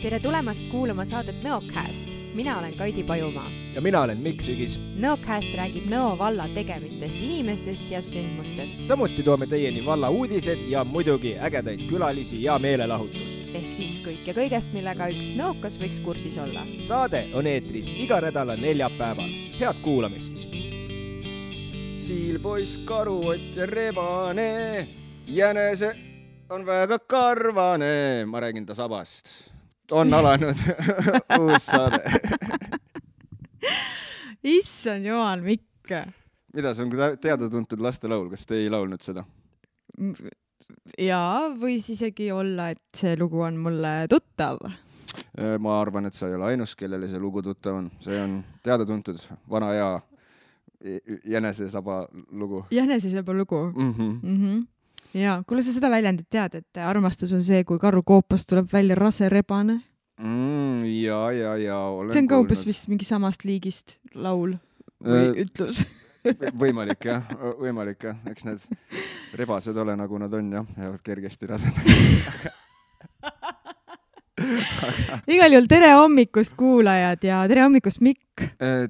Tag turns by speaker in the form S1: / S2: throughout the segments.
S1: Tere tulemast kuulama saadet Nõocast. Mina olen Kaidi Pajumaa.
S2: Ja mina olen Mikk Sügis.
S1: Nõocast räägib Nõo valla tegemistest, inimestest ja sündmustest.
S2: Samuti toome teieni valla uudised ja muidugi ägedaid külalisi ja meelelahutust.
S1: Ehk siis kõik ja kõigest, millega üks nõokas võiks kursis olla.
S2: Saade on eetris iga nädala neljapäeval. Head kuulamist! Siilpoiss, karuott ja rebane, jänese on väga karvane. Ma räägin ta sabast. On alanud uus saade.
S1: Issand jumal, Mikk.
S2: Mida, see on teada-tuntud lastelaul, kas te ei laulnud seda?
S1: Jaa, võis isegi olla, et see lugu on mulle tuttav.
S2: Ma arvan, et sa ei ole ainus, kellele see lugu tuttav on. See on teada-tuntud vana hea jänesesaba lugu. Jänesesaba lugu?
S1: Jaa, kuule sa seda väljendit tead, et armastus on see, kui karu koopast tuleb välja rase rebane?
S2: Jaa, olen
S1: see on ka umbes vist mingi samast liigist laul või ütlus.
S2: Võimalik jah. Eks need rebased ole nagu nad on, jah, jäävad kergesti rased.
S1: Igal juhul tere hommikust kuulajad ja tere hommikust Mikk.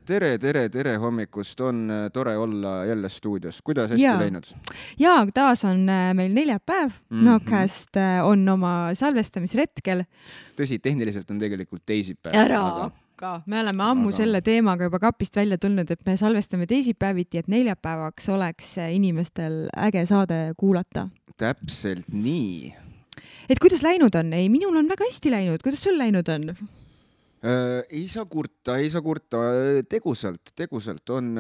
S2: Tere hommikust, on tore olla jälle stuudios. Kuidas hästi läinud?
S1: Jaa, taas on meil neljapäev. Nõocast on oma salvestamisretkel.
S2: Tõsi, tehniliselt on tegelikult teisipäev.
S1: Ära hakka. Me oleme ammu selle teemaga juba kapist välja tulnud, et me salvestame teisipäeviti, et neljapäevaks oleks inimestel äge saade kuulata.
S2: Täpselt nii.
S1: Et kuidas läinud on? Ei, minul on väga hästi läinud. Kuidas sul läinud on?
S2: Ei saa kurta. Tegusalt on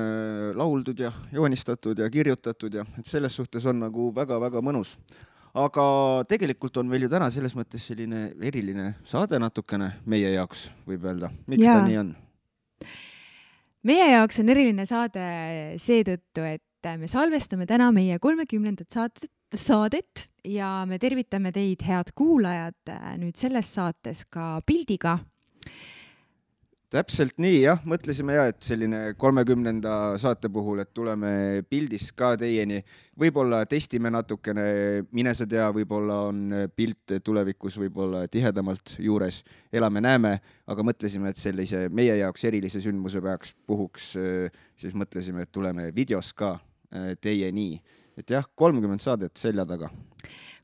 S2: lauldud ja joonistatud ja kirjutatud ja et selles suhtes on nagu väga-väga mõnus. Aga tegelikult on meil ju täna selles mõttes selline eriline saade natukene meie jaoks, võib öelda. Miks ta nii on?
S1: Meie jaoks on eriline saade seetõttu, et me salvestame täna meie 30. saadet ja me tervitame teid, head kuulajad, nüüd selles saates ka pildiga.
S2: Täpselt nii, jah. Mõtlesime et selline 30. saate puhul, et tuleme pildis ka teieni. Võib-olla testime natukene, mine sa tea, võib-olla on pilt tulevikus võib-olla tihedamalt juures. Elame-näeme, aga mõtlesime, et sellise meie jaoks erilise sündmuse puhuks, siis mõtlesime, et tuleme videos ka teieni. Et jah, 30 saadet selja taga.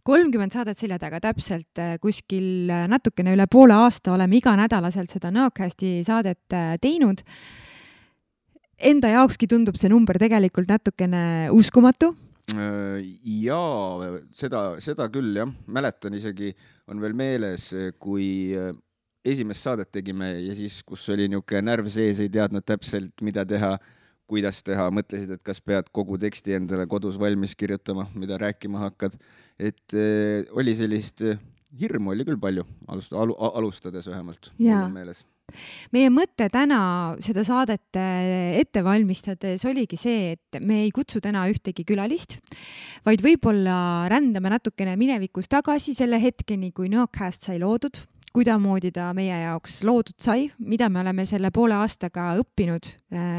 S1: 30 saadet selja taga, täpselt kuskil natukene üle poole aasta oleme iga nädalaselt seda Nõocasti saadet teinud. Enda jaokski tundub see number tegelikult natukene uskumatu.
S2: Jaa, seda küll, jah. Mäletan isegi, on veel meeles, kui esimest saadet tegime ja siis, kus oli niuke närv sees, ei teadnud täpselt, mida teha, kuidas teha, mõtlesid, et kas pead kogu teksti endale kodus valmis kirjutama, mida rääkima hakkad. Et oli sellist hirmu oli küll palju, alustades vähemalt. Meeles.
S1: Meie mõte täna seda saadet ette valmistades oligi see, et me ei kutsu täna ühtegi külalist, vaid võib-olla rändame natukene minevikus tagasi selle hetkeni, kui Nõocast sai loodud, kuidamoodi ta meie jaoks loodud sai, mida me oleme selle poole aastaga õppinud,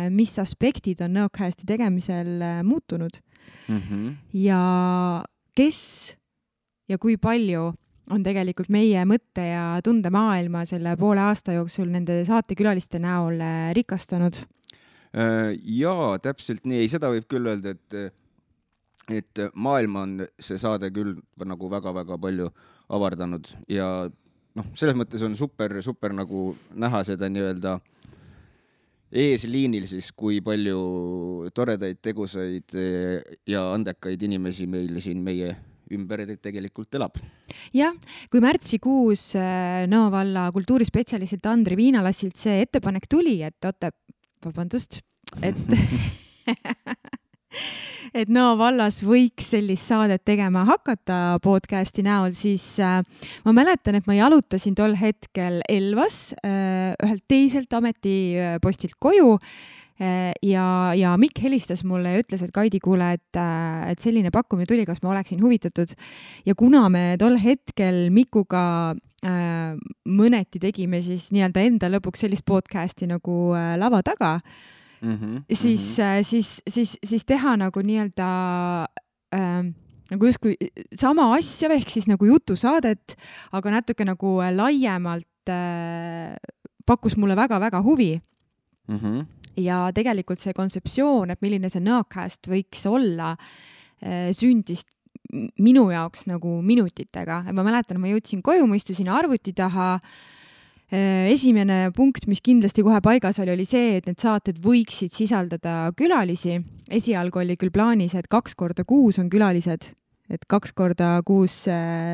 S1: mis aspektid on Nõocasti tegemisel muutunud ja kes ja kui palju on tegelikult meie mõtte ja tunde maailma selle poole aasta jooksul nende saatekülaliste näol rikastanud.
S2: Jaa, täpselt nii. Ei, seda võib küll öelda, et maailma on see saade küll nagu väga-väga palju avardanud ja selles mõttes on super nagu näha seda nii-öelda eesliinil siis, kui palju toredaid, tegusaid ja andekaid inimesi meil siin meie ümber tegelikult elab.
S1: Jah, kui märtsikuus Nõo valla kultuurispetsialistilt Andri Viinalassilt see ettepanek tuli, et Nõo vallas võiks sellist saadet tegema hakata podcasti näol, siis ma mäletan, et ma jalutasin tol hetkel Elvas ühelt teiselt ametipostilt koju ja Mikk helistas mulle ja ütles, et Kaidi, kuule, et selline pakkumine tuli, kas ma oleksin huvitatud. Ja kuna me tol hetkel Mikuga mõneti tegime siis nii-öelda enda lõpuks sellist podcasti nagu lava taga, siis teha nagu nii-öelda nagu justkui sama asja, ehk siis nagu jutusaadet, aga natuke nagu laiemalt pakkus mulle väga-väga huvi. Ja tegelikult see kontseptsioon, et milline see Nõcast võiks olla, sündis minu jaoks nagu minutitega. Ma mäletan, ma jõudsin koju, ma istusin arvuti taha. Esimene punkt, mis kindlasti kohe paigas oli see, et need saated võiksid sisaldada külalisi. Esialgu oli küll plaanis, et 2 korda kuus on külalised, et 2 korda kuus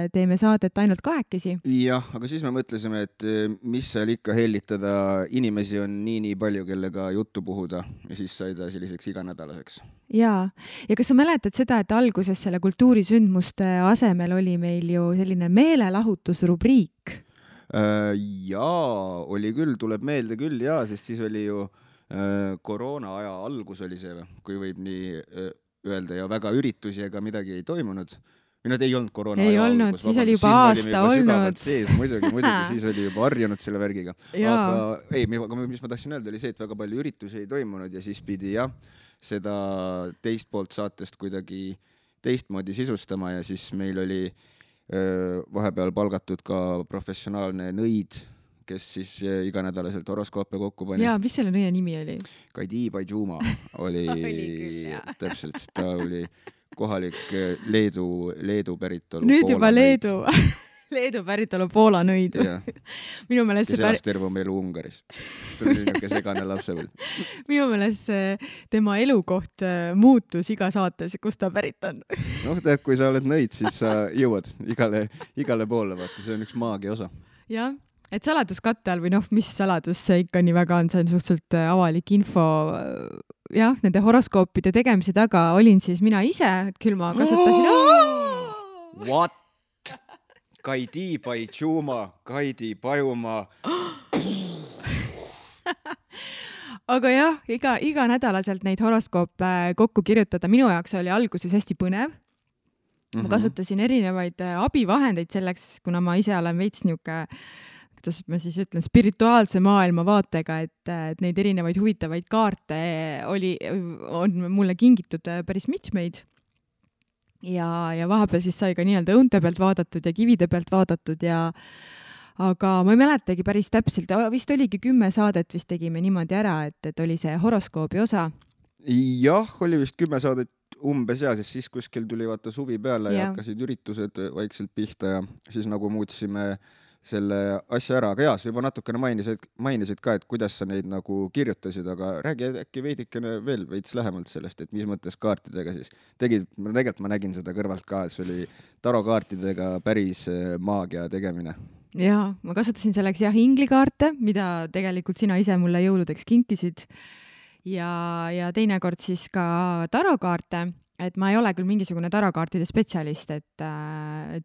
S1: teeme saadet ainult 2.
S2: Jah, aga siis me mõtlesime, et mis seal ikka hellitada, inimesi on nii palju, kellega juttu puhuda ja siis sai ta selliseks iganädalaseks.
S1: Ja kas sa mäletad seda, et alguses selle kultuurisündmuste asemel oli meil ju selline meelelahutusrubriik?
S2: Jaa, oli küll, tuleb meelde küll, sest siis oli ju koroona aja algus oli see, kui võib nii öelda, ja väga üritusi ega midagi ei toimunud. Nad ei olnud koroona
S1: aja algus. Siis oli juba aasta olnud.
S2: Muidugi, siis oli juba harjunud selle värgiga. Aga mis ma tahtsin öelda, oli see, et väga palju üritusi ei toimunud ja siis pidi seda teist poolt saatest kuidagi teistmoodi sisustama ja siis meil oli vahepeal palgatud ka professionaalne nõid, kes siis iganädalaselt horoskoope kokku pani.
S1: Jaa, mis selle nõia nimi oli?
S2: Kaidi Paijuma oli täpselt, ta oli kohalik Leedu päritolu.
S1: Nüüd juba Leedu. Leedu päritolu Poola nõid. Minu meelest
S2: kes elas terve oma elu Ungaris. Ta oli niisugune segane lapsepõlv.
S1: Minu meelest tema elukoht muutus iga saates, kus ta pärit on.
S2: Tead, kui sa oled nõid, siis sa jõuad igale poole, vaata, see on üks maagia osa.
S1: Jah, et saladuskatte all või mis saladus see ikka nii väga on, see on suhteliselt avalik info. Jah, nende horoskoopide tegemise taga olin siis mina ise, et küll ma kasutasin...
S2: What? Kaidi Paijuma, Kaidi Pajuma.
S1: Aga jah, iga nädalaselt neid horoskoope kokku kirjutada. Minu jaoks oli alguses hästi põnev. Ma kasutasin erinevaid abivahendeid selleks, kuna ma ise olen veits niuke, kuidas ma siis ütlen, spirituaalse maailma vaatega, et neid erinevaid huvitavaid kaarte on mulle kingitud päris mitmeid. Ja vahepeal siis sai ka nii-öelda õunte pealt vaadatud ja kivide pealt vaadatud aga ma ei mäletagi päris täpselt, vist oligi 10 saadet vist tegime niimoodi ära, et oli see horoskoobi osa.
S2: Jah, oli vist 10 saadet umbes siis kuskil tuli vaata suvi peale ja hakkasid üritused vaikselt pihta ja siis nagu muutsime selle asja ära, aga sa juba natukene mainisid ka, et kuidas sa neid nagu kirjutasid, aga räägi äkki veidikene veel veits lähemalt sellest, et mis mõttes kaartidega siis tegid, tegelikult ma nägin seda kõrvalt ka, et see oli tarokaartidega päris maagia tegemine.
S1: Jaa, ma kasutasin selleks inglikaarte, mida tegelikult sina ise mulle jõuludeks kinkisid ja teinekord siis ka tarokaarte. Et ma ei ole küll mingisugune tarokaartide spetsialist, et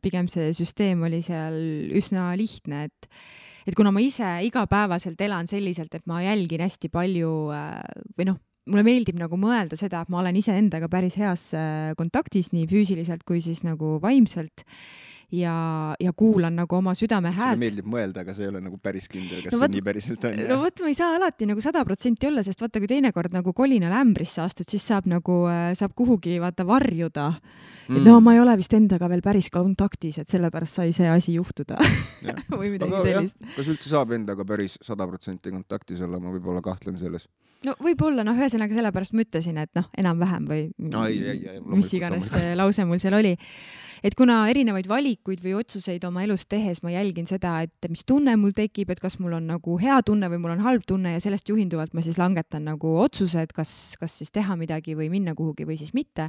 S1: pigem see süsteem oli seal üsna lihtne, et kuna ma ise igapäevaselt elan selliselt, et ma jälgin hästi palju või mulle meeldib nagu mõelda seda, et ma olen ise endaga päris heas kontaktis nii füüsiliselt kui siis nagu vaimselt ja kuulan nagu oma südame häält.
S2: Sulle meeldib mõelda, aga see ei ole nagu päris kindel, kas see nii päriselt on.
S1: No võt, ma ei saa alati nagu 100% olla, sest vaata, kui teinekord nagu kolinal ämbrisse astud, siis saab kuhugi vaata varjuda. Et ma ei ole vist endaga veel päris kontaktis, et sellepärast sai see asi juhtuda. Või midagi sellist.
S2: Kas üldse saab endaga päris 100% kontaktis olla, ma võib-olla kahtlen selles.
S1: No võib-olla, ühesõnaga sellepärast ma ütlesin, et enam-vähem või mis iganes lause mul seal oli. Et kuna erinevaid valikuid või otsuseid oma elus tehes ma jälgin seda, et mis tunne mul tekib, et kas mul on nagu hea tunne või mul on halb tunne ja sellest juhinduvalt ma siis langetan nagu otsused, kas siis teha midagi või minna kuhugi või siis mitte,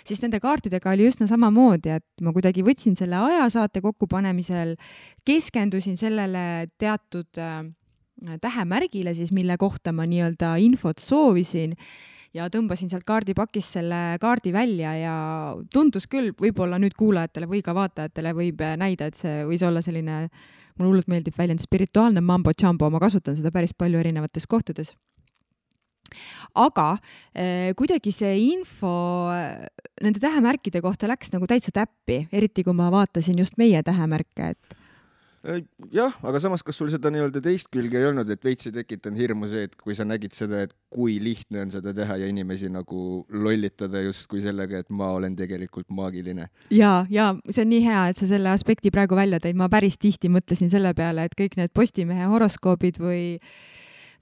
S1: siis nende kaartidega oli üsna samamoodi, et ma kuidagi võtsin selle ajasaate kokkupanemisel, keskendusin sellele teatud tähemärgile siis, mille kohta ma nii-öelda infot soovisin ja tõmbasin sealt kaardipakist selle kaardi välja ja tundus küll, võib-olla nüüd kuulajatele või ka vaatajatele võib näida, et see võis olla selline, mulle hullult meeldib väljend spirituaalne mambo-jambo, ma kasutan seda päris palju erinevates kohtades. Aga kuidagi see info nende tähemärkide kohta läks nagu täitsa täppi, eriti kui ma vaatasin just meie tähemärke, et
S2: Jah, aga samas, kas sul seda nii-öelda teist külge ei olnud, et veits ei tekitanud hirmu see, et kui sa nägid seda, et kui lihtne on seda teha ja inimesi nagu lollitada justkui sellega, et ma olen tegelikult maagiline.
S1: ja see on nii hea, et sa selle aspekti praegu välja tõid. Ma päris tihti mõtlesin selle peale, et kõik need Postimehe horoskoobid või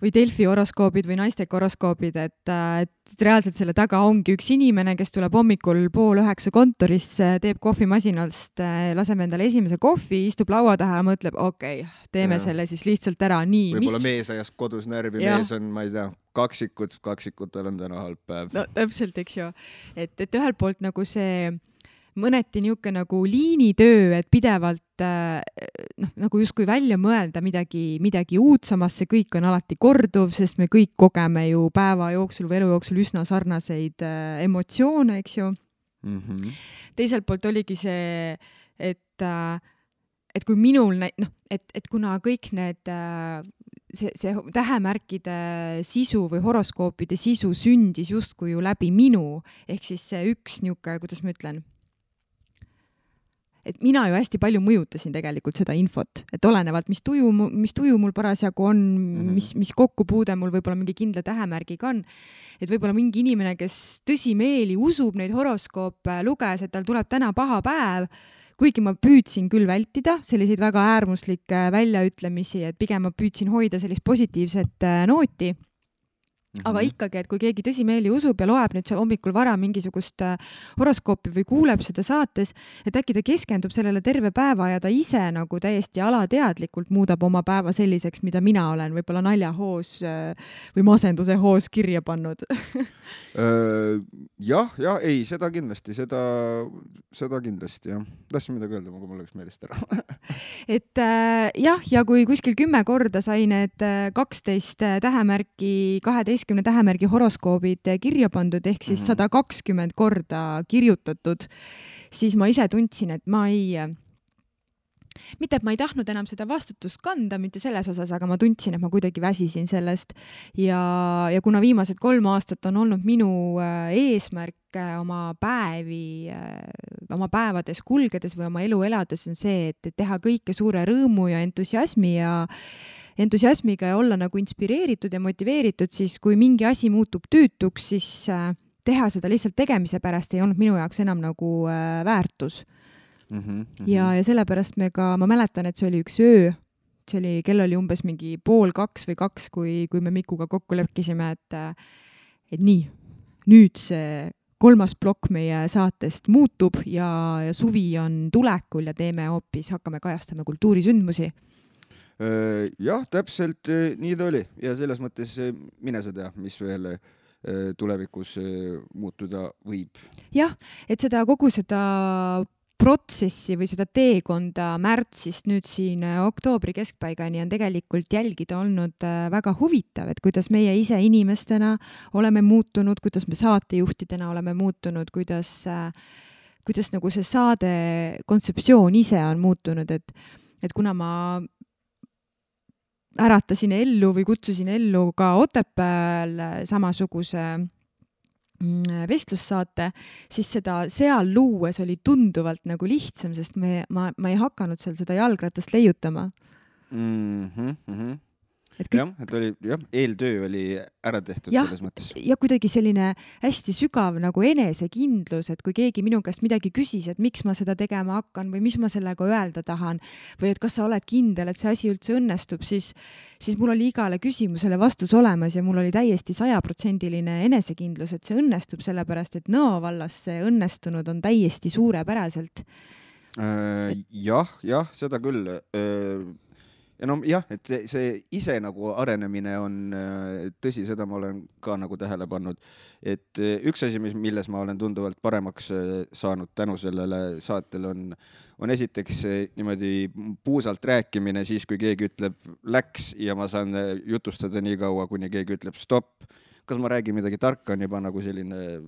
S1: Delfi horoskoobid või naisteka horoskoobid, et reaalselt selle taga ongi üks inimene, kes tuleb hommikul 8:30 kontorisse, teeb kohvimasinast, laseb endale esimese kohvi, istub laua taha ja mõtleb, okei, teeme selle siis lihtsalt ära. Nii,
S2: võib-olla mees ajas kodus närvi, mees on, ma ei tea, kaksikutel on täna halb päev.
S1: No täpselt, eks ju. Et ühelt poolt nagu see mõneti niuke nagu liinitöö, et pidevalt nagu justkui välja mõelda midagi uut, samas see kõik on alati korduv, sest me kõik kogeme ju päeva jooksul või elu jooksul üsna sarnaseid emotsioone, eks ju. Teiselt poolt oligi see, et kui minul, et kuna kõik need see tähemärkide sisu või horoskoopide sisu sündis justkui ju läbi minu, ehk siis see üks niuke, kuidas ma ütlen, et mina ju hästi palju mõjutasin tegelikult seda infot, et olenevalt, mis tuju mul parasjagu on, mis kokkupuude mul võib-olla mingi kindla tähemärgiga on, et võib-olla mingi inimene, kes tõsimeeli usub neid horoskoope, luges, et tal tuleb täna paha päev, kuigi ma püüdsin küll vältida selliseid väga äärmuslikke väljaütlemisi, et pigem ma püüdsin hoida sellist positiivset nooti. Aga ikkagi, et kui keegi tõsimeeli usub ja loeb nüüd hommikul vara mingisugust horoskoopi või kuuleb seda saates, et äkki ta keskendub sellele terve päeva ja ta ise nagu täiesti alateadlikult muudab oma päeva selliseks, mida mina olen võib-olla naljahoos või masenduse hoos kirja pannud.
S2: jah, ei, seda kindlasti, jah. Tahtsin midagi öelda, aga mul läks meelest ära.
S1: Et ja kui kuskil 10 korda sai need 12 tähemärki, 12 tähemärgi horoskoobid kirja pandud, ehk siis 120 korda kirjutatud, siis ma ise tundsin, et mitte, et ma ei tahtnud enam seda vastutust kanda, mitte selles osas, aga ma tundsin, et ma kuidagi väsisin sellest. Ja kuna viimased 3 aastat on olnud minu eesmärk oma päevades kulgedes või oma elu elades on see, et teha kõike suure rõõmu ja entusiasmiga ja olla nagu inspireeritud ja motiveeritud, siis kui mingi asi muutub tüütuks, siis teha seda lihtsalt tegemise pärast ei olnud minu jaoks enam nagu väärtus. Ja sellepärast ma mäletan, et see oli üks öö, kell oli umbes mingi 1:30 või 2, kui me Mikuga kokku leppisime, et nii, nüüd see 3. plokk meie saatest muutub ja suvi on tulekul ja hakkame kajastama kultuurisündmusi.
S2: Jah, täpselt nii ta oli ja selles mõttes mine sa tea, mis veel tulevikus muutuda võib.
S1: Jah, et kogu seda protsessi või seda teekonda märtsist nüüd siin oktoobri keskpaigani on tegelikult jälgida olnud väga huvitav, et kuidas meie ise inimestena oleme muutunud, kuidas me saatejuhtidena oleme muutunud, kuidas nagu see saade kontseptsioon ise on muutunud, et kuna ma äratasin ellu või kutsusin ellu ka Otepääl samasuguse vestlussaate, siis seda seal luues oli tunduvalt nagu lihtsam, sest ma ei hakanud seal seda jalgratast leiutama.
S2: Et oli, eeltöö oli ära tehtud selles mõttes.
S1: Ja kuidagi selline hästi sügav nagu enesekindlus, et kui keegi minu käest midagi küsis, et miks ma seda tegema hakkan või mis ma sellega öelda tahan või et kas sa oled kindel, et see asi üldse õnnestub, siis mul oli igale küsimusele vastus olemas ja mul oli täiesti 100% enesekindlus, et see õnnestub, sellepärast et Nõo vallas see õnnestunud on täiesti suurepäraselt.
S2: Jah, seda küll. Ja jah, et see ise nagu arenemine on tõsi, seda ma olen ka nagu tähele pannud, et üks asi, milles ma olen tunduvalt paremaks saanud tänu sellele saatele on esiteks niimoodi puusalt rääkimine siis, kui keegi ütleb läks ja ma saan jutustada nii kaua, kuni keegi ütleb stopp. Kas ma räägin midagi tarka, on juba nagu selline,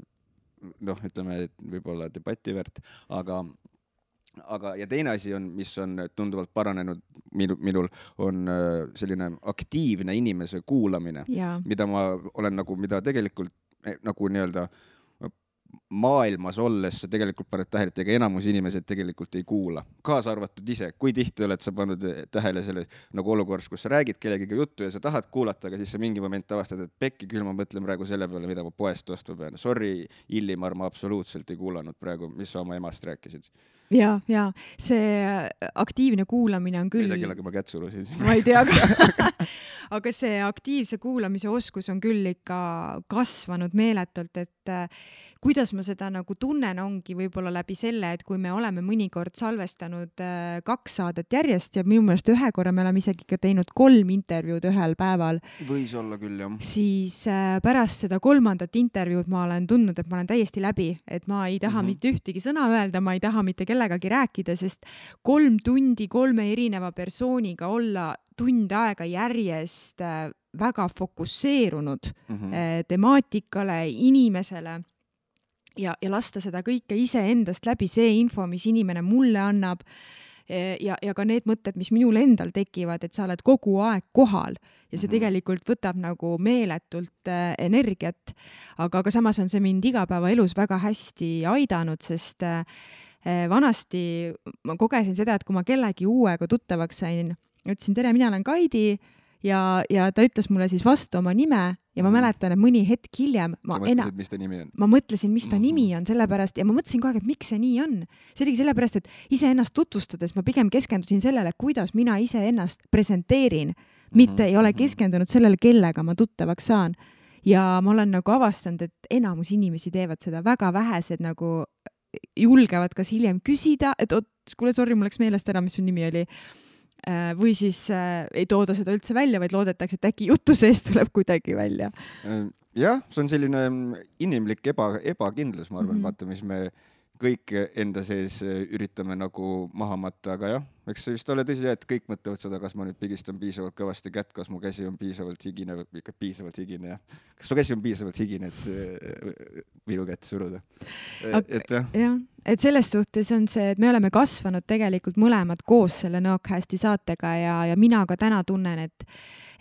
S2: ütleme, et võib-olla debati väärt, aga ja teine asi on, mis on tunduvalt paranenud minul, on selline aktiivne inimese kuulamine, mida ma olen mida tegelikult nagu nii-öelda maailmas olles sa tegelikult paned tähele, et ega enamus inimesed tegelikult ei kuula, kaasa arvatud ise. Kui tihti oled sa pannud tähele selles nagu olukorras, kus sa räägid kellegiga juttu ja sa tahad kuulata, aga siis sa mingi moment avastad, et pekki küll ma mõtlen praegu selle peale, mida ma poest ostma pean. Sorry, Illimar, ma absoluutselt ei kuulanud praegu, mis sa oma emast rääkisid.
S1: Ja see aktiivne kuulamine on küll...
S2: Ei tea, kellega ma kätt surusin.
S1: Ma ei tea, aga see aktiivse kuulamise oskus on küll ikka kasvanud meeletult, et kuidas ma seda nagu tunnen ongi võib-olla läbi selle, et kui me oleme mõnikord salvestanud 2 saadet järjest ja minu meelest ühe korra me oleme isegi ka teinud 3 intervjuud ühel päeval.
S2: Võis olla küll, jah.
S1: Siis pärast seda 3. intervjuud ma olen tundnud, et ma olen täiesti läbi, et ma ei taha mitte ühtegi sõna öelda, ma ei taha mitte kellegagi rääkida, sest 3 tundi 3 erineva persooniga olla tund aega järjest väga fokusseerunud temaatikale, inimesele ja lasta seda kõike iseendast läbi, see info, mis inimene mulle annab ja ka need mõtted, mis minul endal tekivad, et sa oled kogu aeg kohal ja see tegelikult võtab nagu meeletult energiat, aga samas on see mind igapäevaelus väga hästi aidanud, sest vanasti ma kogesin seda, et kui ma kellegi uuega tuttavaks sain, ütlesin, tere, mina olen Kaidi ja ta ütles mulle siis vastu oma nime ja ma mäletan, et mõni hetk hiljem
S2: sa mõtlesid, mis ta nimi on?
S1: Ma mõtlesin, mis ta nimi on, sellepärast ja ma mõtlesin kogu aeg, et miks see nii on. See oligi sellepärast, et iseennast tutvustades ma pigem keskendusin sellele, kuidas mina iseennast presenteerin, mitte ei ole keskendunud sellele, kellega ma tuttavaks saan. Ja ma olen nagu avastanud, et enamus inimesi teevad seda, väga vähesed nagu julgevad kas hiljem küsida, et kuule, sorry, mul läks meelest ära, mis su nimi oli. Või siis ei tooda seda üldse välja, vaid loodetakse, et äkki jutu seest tuleb kuidagi välja.
S2: Jah, see on selline inimlik ebakindlus, ma arvan, vaata, mis me kõik enda sees üritame nagu maha matta, aga jah, eks see vist ole tõsi, et kõik mõtlevad seda, kas ma nüüd pigistan piisavalt kõvasti kätt, kas mu käsi on piisavalt higine, ikka piisavalt higine, jah. Kas su käsi on piisavalt higine, et minu kätt suruda?
S1: Et selles suhtes on see, et me oleme kasvanud tegelikult mõlemad koos selle Nõokäästi saatega ja mina ka täna tunnen,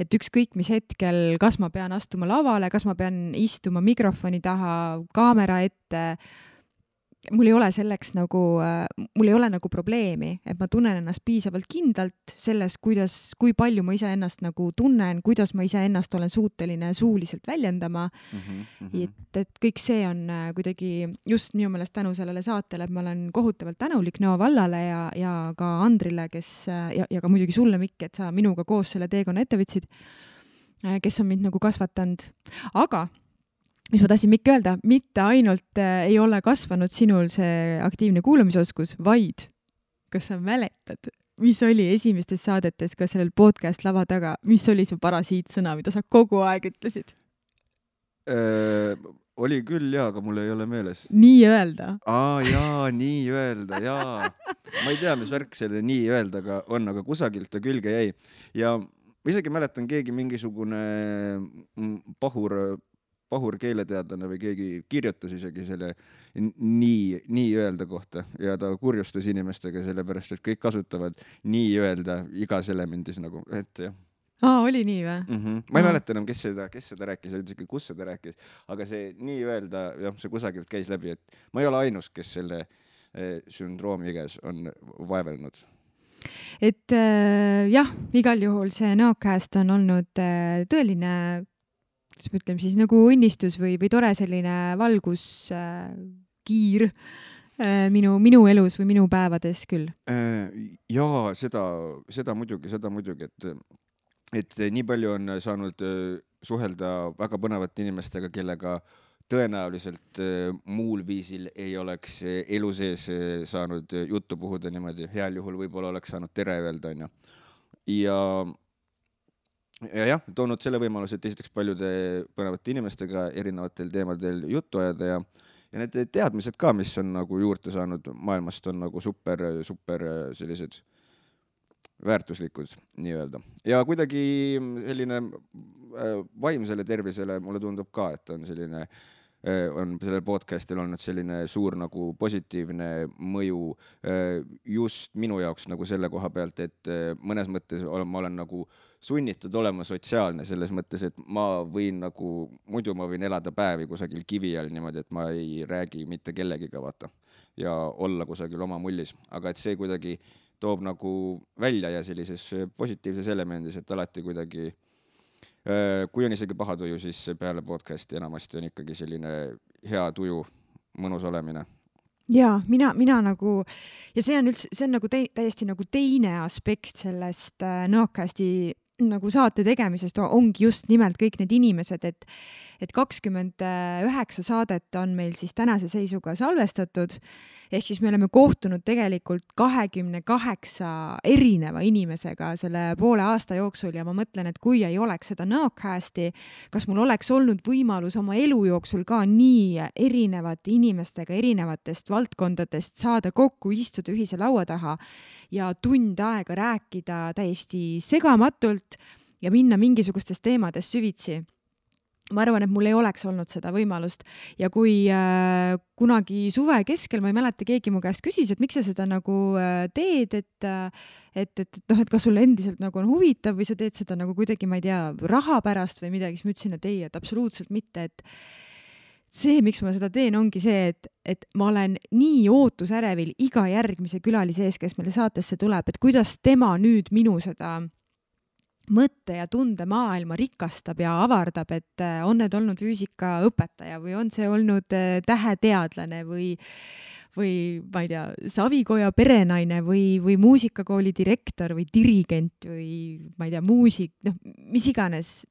S1: et ükskõik mis hetkel, kas ma pean astuma lavale, kas ma pean istuma mikrofoni taha, kaamera ette, mul ei ole selleks mul ei ole nagu probleemi, et ma tunnen ennast piisavalt kindlalt selles, kui palju ma iseennast nagu tunnen, kuidas ma iseennast olen suuteline suuliselt väljendama. Et kõik see on kuidagi just minu meelest tänu sellele saatele, et ma olen kohutavalt tänulik Nõo vallale ja ka Andrile, ja ka muidugi sulle, Mikk, et sa minuga koos selle teekonna ette võtsid, kes on mind nagu kasvatanud. Aga mis ma tahtsin Mikk öelda, mitte ainult ei ole kasvanud sinul see aktiivne kuulamisoskus, vaid kas sa mäletad, mis oli esimestes saadetes ka sellel podcast lava taga, mis oli see parasiitsõna, mida sa kogu aeg ütlesid?
S2: Oli küll, jaa, aga mul ei ole meeles.
S1: Nii öelda.
S2: Nii öelda, jaa. Ma ei tea, mis värk selle nii öeldaga on, aga kusagilt ta külge jäi. Ja ma isegi mäletan, keegi mingisugune pahur keeleteadlane või keegi kirjutas isegi selle nii öelda kohta ja ta kurjustas inimestega sellepärast, et kõik kasutavad nii öelda igas elemendis nagu, et jah.
S1: Oli nii või?
S2: Ma ei mäleta enam, kes seda rääkis, kus seda rääkis, aga see nii öelda, jah, see kusagilt käis läbi, et ma ei ole ainus, kes selle sündroomi käes on vaevelnud.
S1: Et jah, igal juhul see Nõokääst on olnud tõeline ütleme siis nagu õnnistus või tore selline valguskiir minu elus või minu päevades küll.
S2: Jaa, seda muidugi, et nii palju on saanud suhelda väga põnevate inimestega, kellega tõenäoliselt muul viisil ei oleks elu sees saanud juttu puhuda niimoodi. Heal juhul võib-olla oleks saanud tere öelda, on ju. Ja jah, toonud selle võimaluse, et esiteks paljude põnevate inimestega erinevatel teemadel juttu ajada ja need teadmised ka, mis on nagu juurde saanud maailmast, on nagu super sellised väärtuslikud, nii öelda. Ja kuidagi selline vaimsele tervisele mulle tundub ka, et on selline on sellel podcastil olnud selline suur nagu positiivne mõju just minu jaoks nagu selle koha pealt, et mõnes mõttes ma olen nagu sunnitud olema sotsiaalne selles mõttes, et ma võin nagu, muidu ma võin elada päevi kusagil kivi all niimoodi, et ma ei räägi mitte kellegiga, vaata, ja olla kusagil oma mullis, aga et see kuidagi toob nagu välja ja sellises positiivses elemendis, et alati kuidagi, kui on isegi paha tuju, siis peale podcasti enamasti on ikkagi selline hea tuju, mõnus olemine.
S1: Ja mina nagu, ja see on nagu täiesti nagu teine aspekt sellest Nõokasti nagu saate tegemisest ongi just nimelt kõik need inimesed, et 29 saadet on meil siis tänase seisuga salvestatud, ehk siis me oleme kohtunud tegelikult 28 erineva inimesega selle poole aasta jooksul ja ma mõtlen, et kui ei oleks seda Nõokasti, kas mul oleks olnud võimalus oma elu jooksul ka nii erinevate inimestega erinevatest valdkondadest saada kokku, istuda ühise laua taha ja tund aega rääkida täiesti segamatult ja minna mingisugustest teemadest süvitsi. Ma arvan, et mul ei oleks olnud seda võimalust ja kui kunagi suve keskel, ma ei mäleta, keegi mu käest küsis, et miks sa seda nagu teed, et kas sulle endiselt nagu on huvitav või sa teed seda nagu kuidagi, ma ei tea, raha pärast või midagi, siis ma ütlesin, et ei, et absoluutselt mitte, et see, miks ma seda teen, ongi see, et ma olen nii ootusärevil iga järgmise külalise ees, kes meile saatesse tuleb, et kuidas tema nüüd minu seda mõtte ja tunde maailma rikastab ja avardab, et on need olnud füüsikaõpetaja või on see olnud täheteadlane või ma ei tea, Savikoja perenaine või muusikakooli direktor või dirigent või ma ei tea, muusik, mis iganes,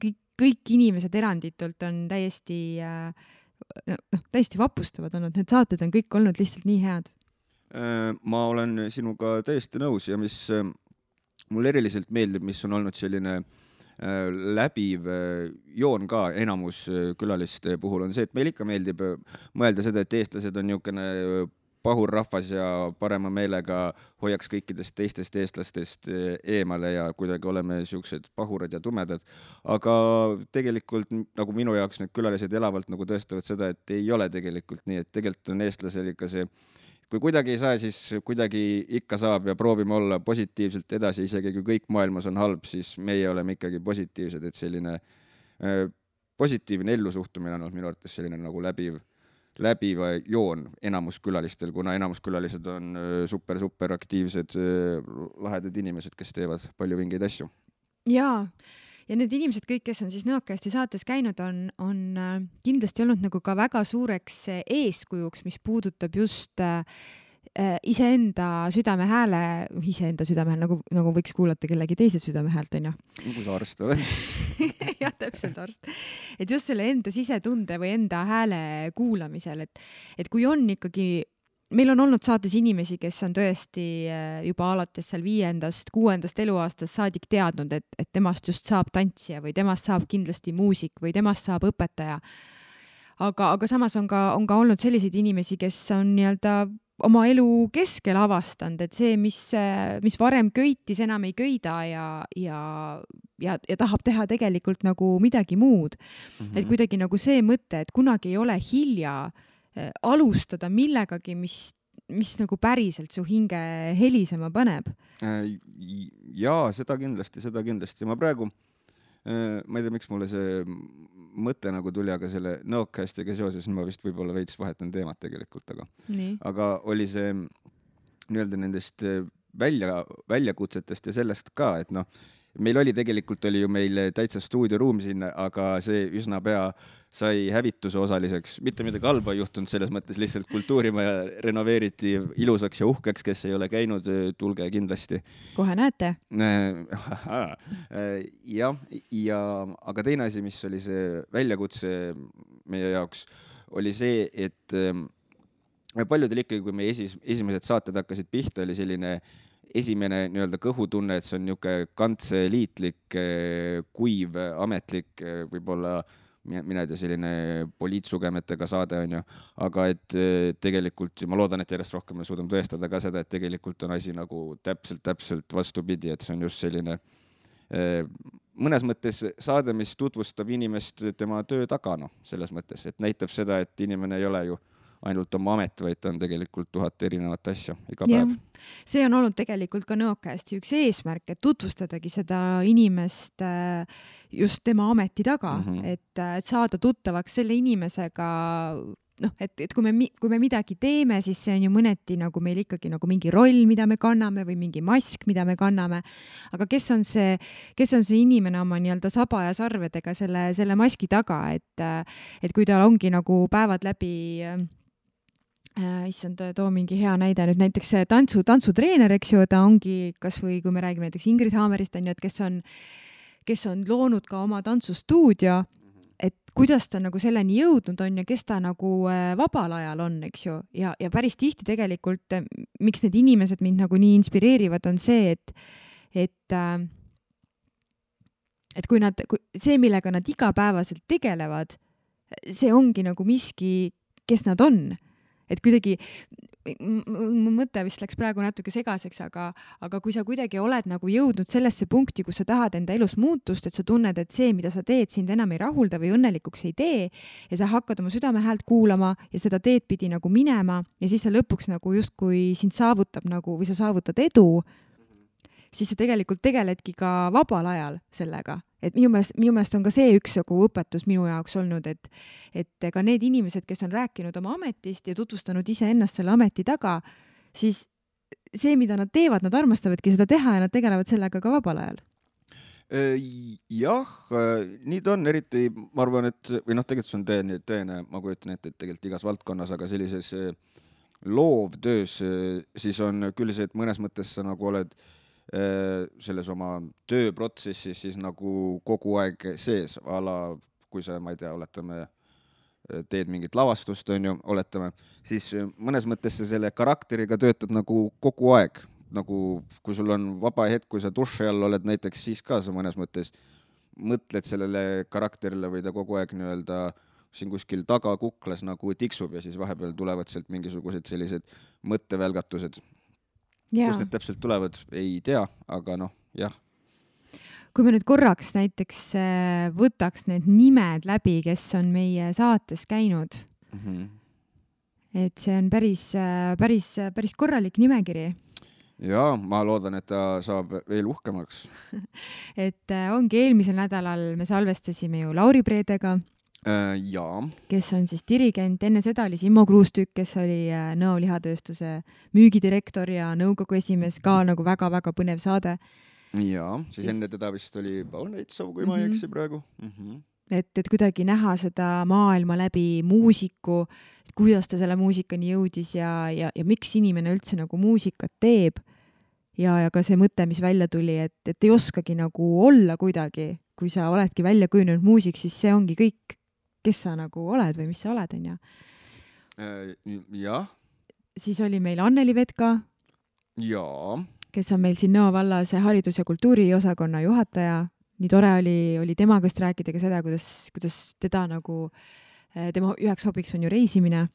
S1: kõik inimesed eranditult on täiesti vapustavad olnud, need saated on kõik olnud lihtsalt nii head.
S2: Ma olen sinuga täiesti nõus ja mis mul eriliselt meeldib, mis on olnud selline läbiv joon ka enamus külaliste puhul on see, et meil ikka meeldib mõelda seda, et eestlased on niisugune pahur rahvas ja parema meelega hoiaks kõikidest teistest eestlastest eemale ja kuidagi oleme siuksed pahurad ja tumedad. Aga tegelikult nagu minu jaoks need külalised elavalt nagu tõestavad seda, et ei ole tegelikult nii, et tegelikult on eestlasel ikka see, kui kuidagi ei saa, siis kuidagi ikka saab ja proovime olla positiivselt edasi, isegi kui kõik maailmas on halb, siis meie oleme ikkagi positiivsed, et selline positiivne ellusuhtumine on minu arvates selline nagu läbiva joon enamus külalistel, kuna enamus külalised on super aktiivsed, lahedad inimesed, kes teevad palju vingeid asju.
S1: Jaa. Ja need inimesed kõik, kes on siis Nõokasti saates käinud, on kindlasti olnud nagu ka väga suureks eeskujuks, mis puudutab just iseenda südamehääle, nagu võiks kuulata kellegi teise südamehäält, on ju?
S2: Nagu sa arst oled.
S1: Jah, täpselt arst. Et just selle enda sisetunde või enda hääle kuulamisel, et kui on ikkagi meil on olnud saates inimesi, kes on tõesti juba alates seal 5., 6. eluaastast saadik teadnud, et temast just saab tantsija või temast saab kindlasti muusik või temast saab õpetaja. Aga samas on ka olnud selliseid inimesi, kes on nii-öelda oma elu keskel avastanud, et see, mis varem köitis, enam ei köida ja tahab teha tegelikult nagu midagi muud. Mm-hmm. Et kuidagi nagu see mõte, et kunagi ei ole hilja alustada millegagi, mis nagu päriselt su hinge helisema paneb.
S2: Jaa, seda kindlasti. Ma praegu, ma ei tea, miks mulle see mõte nagu tuli, aga selle Nõokastiga seoses ma vist võib-olla veits vahetan teemat tegelikult, aga oli see nii-öelda nendest väljakutsetest ja sellest ka, et meil oli ju meil täitsa stuudioruum sinna, aga see üsna pea sai hävituse osaliseks. Mitte midagi halba juhtunud, selles mõttes lihtsalt kultuurimaja renoveeriti ilusaks ja uhkeks, kes ei ole käinud, tulge kindlasti.
S1: Kohe näete.
S2: Aga teine asi, mis oli see väljakutse meie jaoks, oli see, et paljudel ikkagi, kui meie esimesed saated hakkasid pihta, oli selline esimene nii-öelda kõhutunne, et see on niisugune kantseliitlik, kuiv, ametlik, võib-olla mina ei tea, selline poliitsugemetega saade on ju, aga et tegelikult, ma loodan, et järjest rohkem me suudame tõestada ka seda, et tegelikult on asi nagu täpselt vastupidi, et see on just selline mõnes mõttes saade, mis tutvustab inimest tema töö taga, selles mõttes, et näitab seda, et inimene ei ole ju ainult oma amet, vaid ta on tegelikult 1000 erinevat asja iga päev.
S1: See on olnud tegelikult ka Nõokasti üks eesmärk, et tutvustadagi seda inimest just tema ameti taga, et saada tuttavaks selle inimesega, et kui me midagi teeme, siis see on ju mõneti nagu meil ikkagi nagu mingi roll, mida me kanname või mingi mask, mida me kanname. Aga kes on see inimene oma nii-öelda saba ja sarvedega selle maski taga, et kui tal ongi nagu päevad läbi issand, too mingi hea näide nüüd näiteks see tantsutreener, eks ju, ta ongi kas või kui me räägime näiteks Ingrid Haamerist, on ju, et kes on loonud ka oma tantsustuudio, et kuidas ta nagu selleni jõudnud on ja kes ta nagu vabal ajal on, eks ju, ja päris tihti tegelikult, miks need inimesed mind nagu nii inspireerivad, on see, et see, millega nad igapäevaselt tegelevad, see ongi nagu miski, kes nad on. Et kuidagi, mu mõte vist läks praegu natuke segaseks, aga kui sa kuidagi oled nagu jõudnud sellesse punkti, kus sa tahad enda elus muutust, et sa tunned, et see, mida sa teed, sind enam ei rahulda või õnnelikuks ei tee ja sa hakkad oma südame häält kuulama ja seda teed pidi nagu minema ja siis sa lõpuks nagu justkui sind saavutab nagu või sa saavutad edu, siis sa tegelikult tegeledki ka vabal ajal sellega. Et minu meelest on ka see üks õpetus minu jaoks olnud, et ka need inimesed, kes on rääkinud oma ametist ja tutvustanud ise ennast selle ameti taga, siis see, mida nad teevad, nad armastavadki seda teha ja nad tegelevad sellega ka vabal ajal.
S2: Jah, nii ta on, eriti ma arvan, et või tegelikult see on tõene, ma kujutan ette, et tegelikult igas valdkonnas, aga sellises loovtöös siis on küll see, et mõnes mõttes sa nagu oled selles oma tööprotsessis siis nagu kogu aeg sees, kui sa, ma ei tea, oletame, teed mingit lavastust, on ju, oletame, siis mõnes mõttes sa selle karakteriga töötad nagu kogu aeg, nagu kui sul on vaba hetk, kui sa duši all oled näiteks, siis ka sa mõnes mõttes mõtled sellele karakterile või ta kogu aeg nii-öelda siin kuskil taga kuklas nagu tiksub ja siis vahepeal tulevad sealt mingisugused sellised mõttevälgatused. Kus need täpselt tulevad, ei tea, aga jah.
S1: Kui me nüüd korraks näiteks võtaks need nimed läbi, kes on meie saates käinud, et see on päris korralik nimekiri.
S2: Ja, ma loodan, et ta saab veel uhkemaks.
S1: Et ongi eelmisel nädalal me salvestasime ju Lauri Preedega, kes on siis dirigent, enne seda oli Simmo Kruustükk, kes oli Nõo lihatööstuse müügidirektor ja nõukogu esimees, ka nagu väga-väga põnev saade.
S2: Ja, siis enne teda vist oli Paul Neitsov, kui ma ei eksi praegu.
S1: Et kuidagi näha seda maailma läbi muusiku, kuidas ta selle muusikani jõudis ja miks inimene üldse nagu muusikat teeb ja ka see mõte, mis välja tuli, et ei oskagi nagu olla kuidagi, kui sa oledki välja kujunenud muusik, siis see ongi kõik, kes sa nagu oled või mis sa oled, on ju.
S2: Jah.
S1: Siis oli meil Anneli Vetka, kes on meil siin Nõo vallas haridus- ja kultuuriosakonna juhataja. Nii tore oli temaga just rääkida ka seda, kuidas teda nagu, tema üheks hobiks on ju reisimine.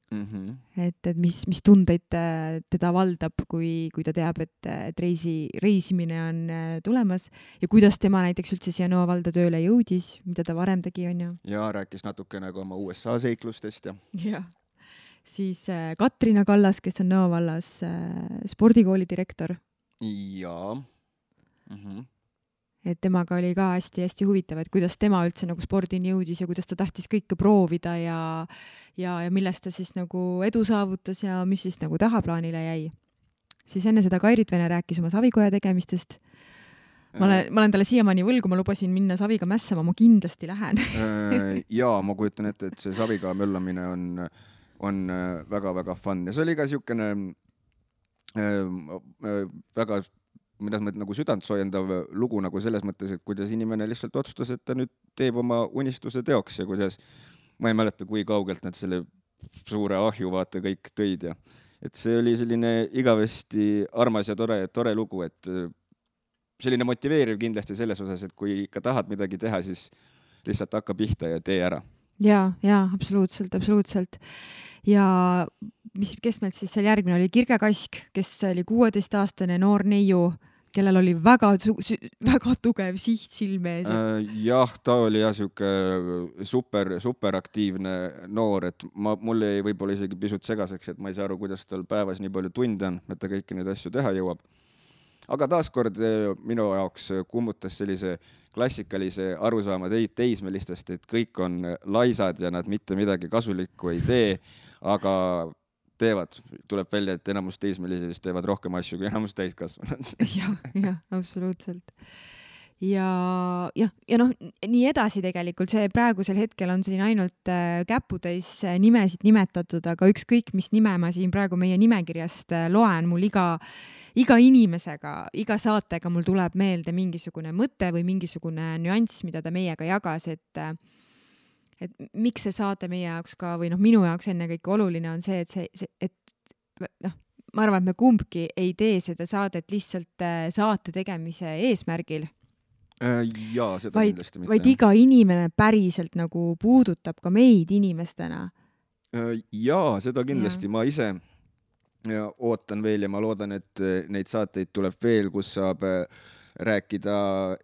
S1: Et mis tundeid teda valdab, kui ta teab, et reisimine on tulemas ja kuidas tema näiteks üldse siia Nõo valda tööle jõudis, mida ta varem tegi, on ju.
S2: Ja rääkis natuke nagu oma USA seiklustest.
S1: Ja. Siis Katrina Kallas, kes on Nõo vallas spordikooli direktor.
S2: Ja.
S1: Et temaga oli ka hästi huvitav, et kuidas tema üldse nagu spordini jõudis ja kuidas ta tahtis kõike proovida ja millest ta siis nagu edu saavutas ja mis siis nagu tahaplaanile jäi. Siis enne seda Kairit Vene rääkis oma savikoja tegemistest. Ma olen talle siiamaani võlgu, ma lubasin minna saviga mässama, ma kindlasti lähen.
S2: Ja, ma kujutan ette, et see saviga möllamine on väga-väga fun ja see oli ka siukene väga mida nagu südant soojendav lugu nagu selles mõttes, et kuidas inimene lihtsalt otsustas, et ta nüüd teeb oma unistuse teoks ja kuidas, ma ei mäleta, kui kaugelt nad selle suure ahju vaata kõik tõid ja et see oli selline igavesti armas ja tore lugu, et selline motiveeriv kindlasti selles osas, et kui ikka tahad midagi teha, siis lihtsalt hakka pihta ja tee ära.
S1: Ja, absoluutselt. Ja kes meil siis seal järgmine oli Kirge Kask, kes oli 16-aastane noor neiu, kellel oli väga tugev siht silme ees.
S2: Jah, ta oli jah siuke superaktiivne noor, et mul jäi võib-olla isegi pisut segaseks, et ma ei saa aru, kuidas tal päevas nii palju tunde on, et ta kõiki neid asju teha jõuab. Aga taaskord minu jaoks kummutas sellise klassikalise arusaama teismelistest, et kõik on laisad ja nad mitte midagi kasulikku ei tee, aga tuleb välja, et enamus teismelised teevad rohkem asju kui enamus täiskasvanud.
S1: jah, absoluutselt. Ja noh, nii edasi tegelikult, see praegusel hetkel on siin ainult käputäis nimesid nimetatud, aga ükskõik, mis nime ma siin praegu meie nimekirjast loen, mul iga inimesega, iga saatega mul tuleb meelde mingisugune mõte või mingisugune nüanss, mida ta meiega jagas, et miks see saate meie jaoks ka, või noh, minu jaoks ennekõike oluline on see, et noh, ma arvan, et me kumbki ei tee seda saadet lihtsalt saate tegemise eesmärgil.
S2: Jaa, seda kindlasti mitte.
S1: Vaid iga inimene päriselt nagu puudutab ka meid inimestena.
S2: Jaa, seda kindlasti. Ma ise ootan veel ja ma loodan, et neid saateid tuleb veel, kus saab rääkida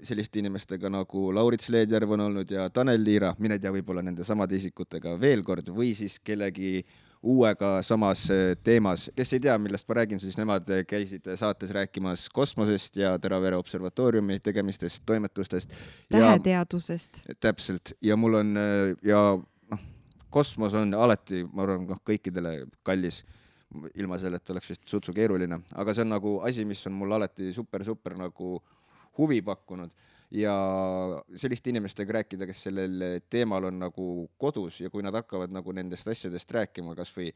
S2: selliste inimestega nagu Laurits Leedjärv on olnud ja Tanel Liira, mine tea, võib-olla nende samade isikutega veel kord või siis kellegi uuega samas teemas. Kes ei tea, millest ma räägin, siis nemad käisid saates rääkimas kosmosest ja Teravere observatooriumi tegemistest, toimetustest.
S1: Täheteadusest.
S2: Täpselt. Ja mul on, kosmos on alati, ma arvan, kõikidele kallis, ilma selle, et oleks vist sutsu keeruline. Aga see on nagu asi, mis on mul alati super nagu huvi pakkunud ja selliste inimestega rääkida, kes sellel teemal on nagu kodus ja kui nad hakkavad nagu nendest asjadest rääkima, kas või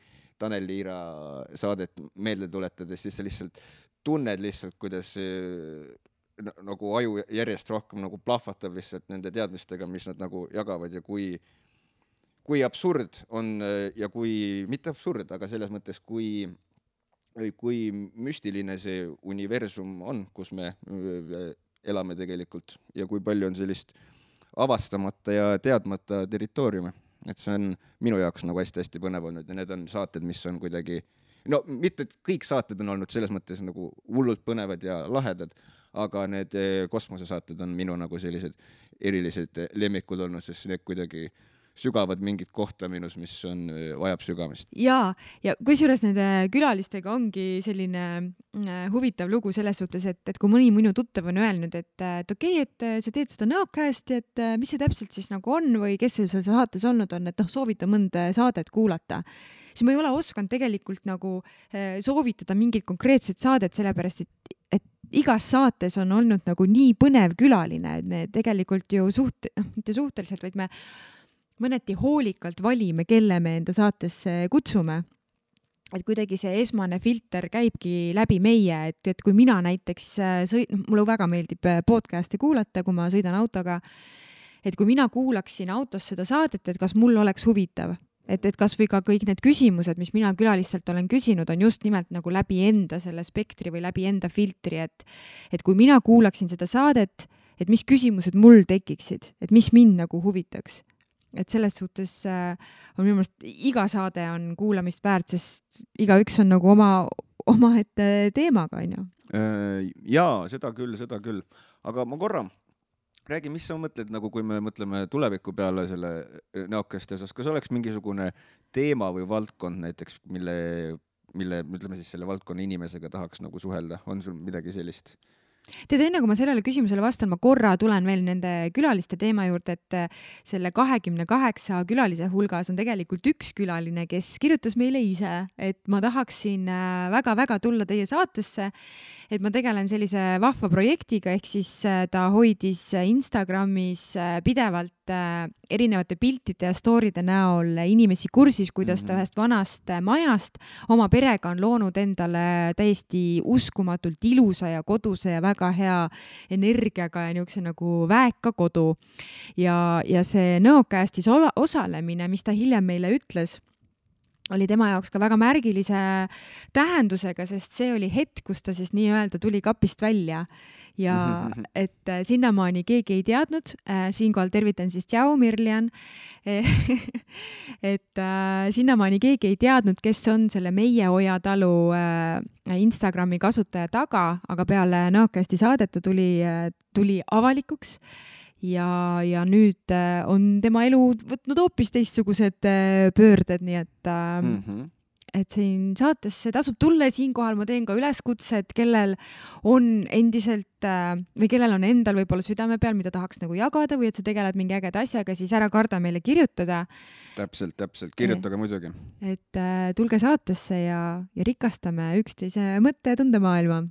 S2: Tanel Liira saadet meelde tuletades, siis sa lihtsalt tunned lihtsalt, kuidas nagu aju järjest rohkem nagu plahvatab lihtsalt nende teadmistega, mis nad nagu jagavad ja kui absurd on ja kui, mitte absurd, aga selles mõttes, kui müstiline see universum on, kus me elame tegelikult ja kui palju on sellist avastamata ja teadmata territooriume. Et see on minu jaoks nagu hästi põnev olnud ja need on saated, mis on kuidagi, no mitte kõik saated on olnud selles mõttes nagu hullult põnevad ja lahedad, aga need kosmosesaated on minu nagu sellised erilised lemmikud olnud, sest need kuidagi sügavad mingit kohta minus, mis vajab sügamist.
S1: Ja kusjuures nende külalistega ongi selline huvitav lugu selles suhtes, et kui mõni minu tuttav on öelnud, et okei, et sa teed seda Nõocasti, et mis see täpselt siis nagu on või kes seal saates olnud on, et soovita mõnda saadet kuulata, siis ma ei ole osanud tegelikult nagu soovitada mingit konkreetset saadet, sellepärast et igas saates on olnud nagu nii põnev külaline, et me tegelikult ju mitte suhteliselt, vaid me mõneti hoolikalt valime, kelle me enda saatesse kutsume. Et kuidagi see esmane filter käibki läbi meie, et kui mina näiteks mulle väga meeldib podcasti kuulata, kui ma sõidan autoga, et kui mina kuulaksin autos seda saadet, et kas mul oleks huvitav, et kas või ka kõik need küsimused, mis mina külalistelt olen küsinud, on just nimelt nagu läbi enda selle spektri või läbi enda filtri, et kui mina kuulaksin seda saadet, et mis küsimused mul tekiksid, et mis mind nagu huvitaks. Et selles suhtes on minu meelest iga saade on kuulamist väärt, sest igaüks on nagu oma ette teemaga, on ju.
S2: Jaa, seda küll. Aga ma korra räägi, mis sa mõtled, nagu kui me mõtleme tuleviku peale selle Nõocasti osas, kas oleks mingisugune teema või valdkond näiteks, mille ütleme siis selle valdkonna inimesega tahaks nagu suhelda, on sul midagi sellist?
S1: Tead, enne kui ma sellele küsimusele vastan, ma korra tulen veel nende külaliste teema juurde, et selle 28 külalise hulgas on tegelikult üks külaline, kes kirjutas meile ise, et ma tahaksin väga-väga tulla teie saatesse, et ma tegelen sellise vahva projektiga, ehk siis ta hoidis Instagramis pidevalt erinevate piltide ja storyde näol inimesi kursis, kuidas ta ühest vanast majast oma perega on loonud endale täiesti uskumatult ilusa ja koduse ja väga hea energiaga ja niisuguse nagu väeka kodu. Ja see Nõocastis osalemine, mis ta hiljem meile ütles, oli tema jaoks ka väga märgilise tähendusega, sest see oli hetk, kus ta siis nii-öelda tuli kapist välja ja et sinnamaani keegi ei teadnud, siinkohal tervitan siis tšau, Mirlian, et sinnamaani keegi ei teadnud, kes on selle Meie Oja talu Instagrami kasutaja taga, aga peale Nõokasti saadet ta tuli avalikuks ja nüüd on tema elu võtnud hoopis teistsugused pöörded, nii et siin saatesse tasub tulla ja siinkohal ma teen ka üleskutset, kellel on endiselt või kellel on endal võib-olla südame peal, mida tahaks nagu jagada või et sa tegeled mingi ägeda asjaga, siis ära karda meile kirjutada.
S2: Täpselt, kirjutage muidugi.
S1: Et tulge saatesse ja rikastame üksteise mõtte ja tundemaailma.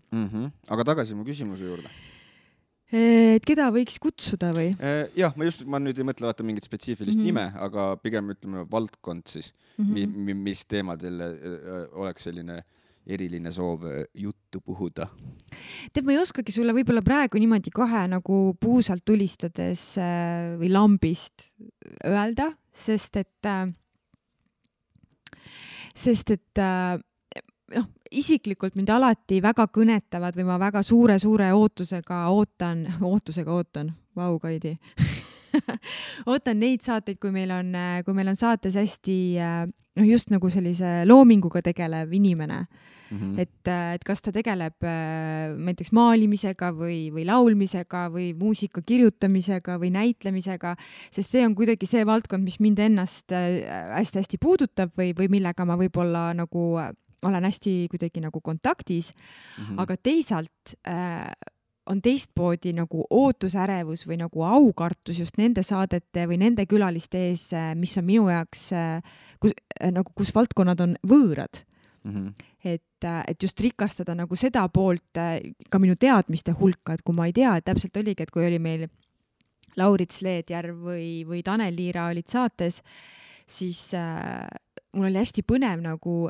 S2: Aga tagasi mu küsimuse juurde.
S1: Et keda võiks kutsuda või?
S2: Jah, ma nüüd ei mõtle vaata mingit spetsiifilist nime, aga pigem ütleme valdkond siis, mis teemadel oleks selline eriline soov juttu puhuda.
S1: Ma ei oskagi sulle võib-olla praegu niimoodi kohe nagu puusalt tulistades või lambist öelda, sest et isiklikult mind alati väga kõnetavad või ma väga suure ootusega ootan, vau, Kaidi, ootan neid saateid, kui meil on saates hästi just nagu sellise loominguga tegelev inimene. Et kas ta tegeleb näiteks maalimisega või laulmisega või muusika kirjutamisega või näitlemisega, sest see on kuidagi see valdkond, mis mind ennast hästi puudutab või millega ma võib-olla nagu olen hästi kuidagi nagu kontaktis, aga teisalt on teistpoodi nagu ootusärevus või nagu aukartus just nende saadete või nende külaliste ees, mis on minu jaoks, kus valdkonnad on võõrad. Et just rikastada nagu seda poolt ka minu teadmiste hulka, et kui ma ei tea, et täpselt oligi, et kui oli meil Laurits Leedjärv või Tanel Liira olid saates, siis mul oli hästi põnev nagu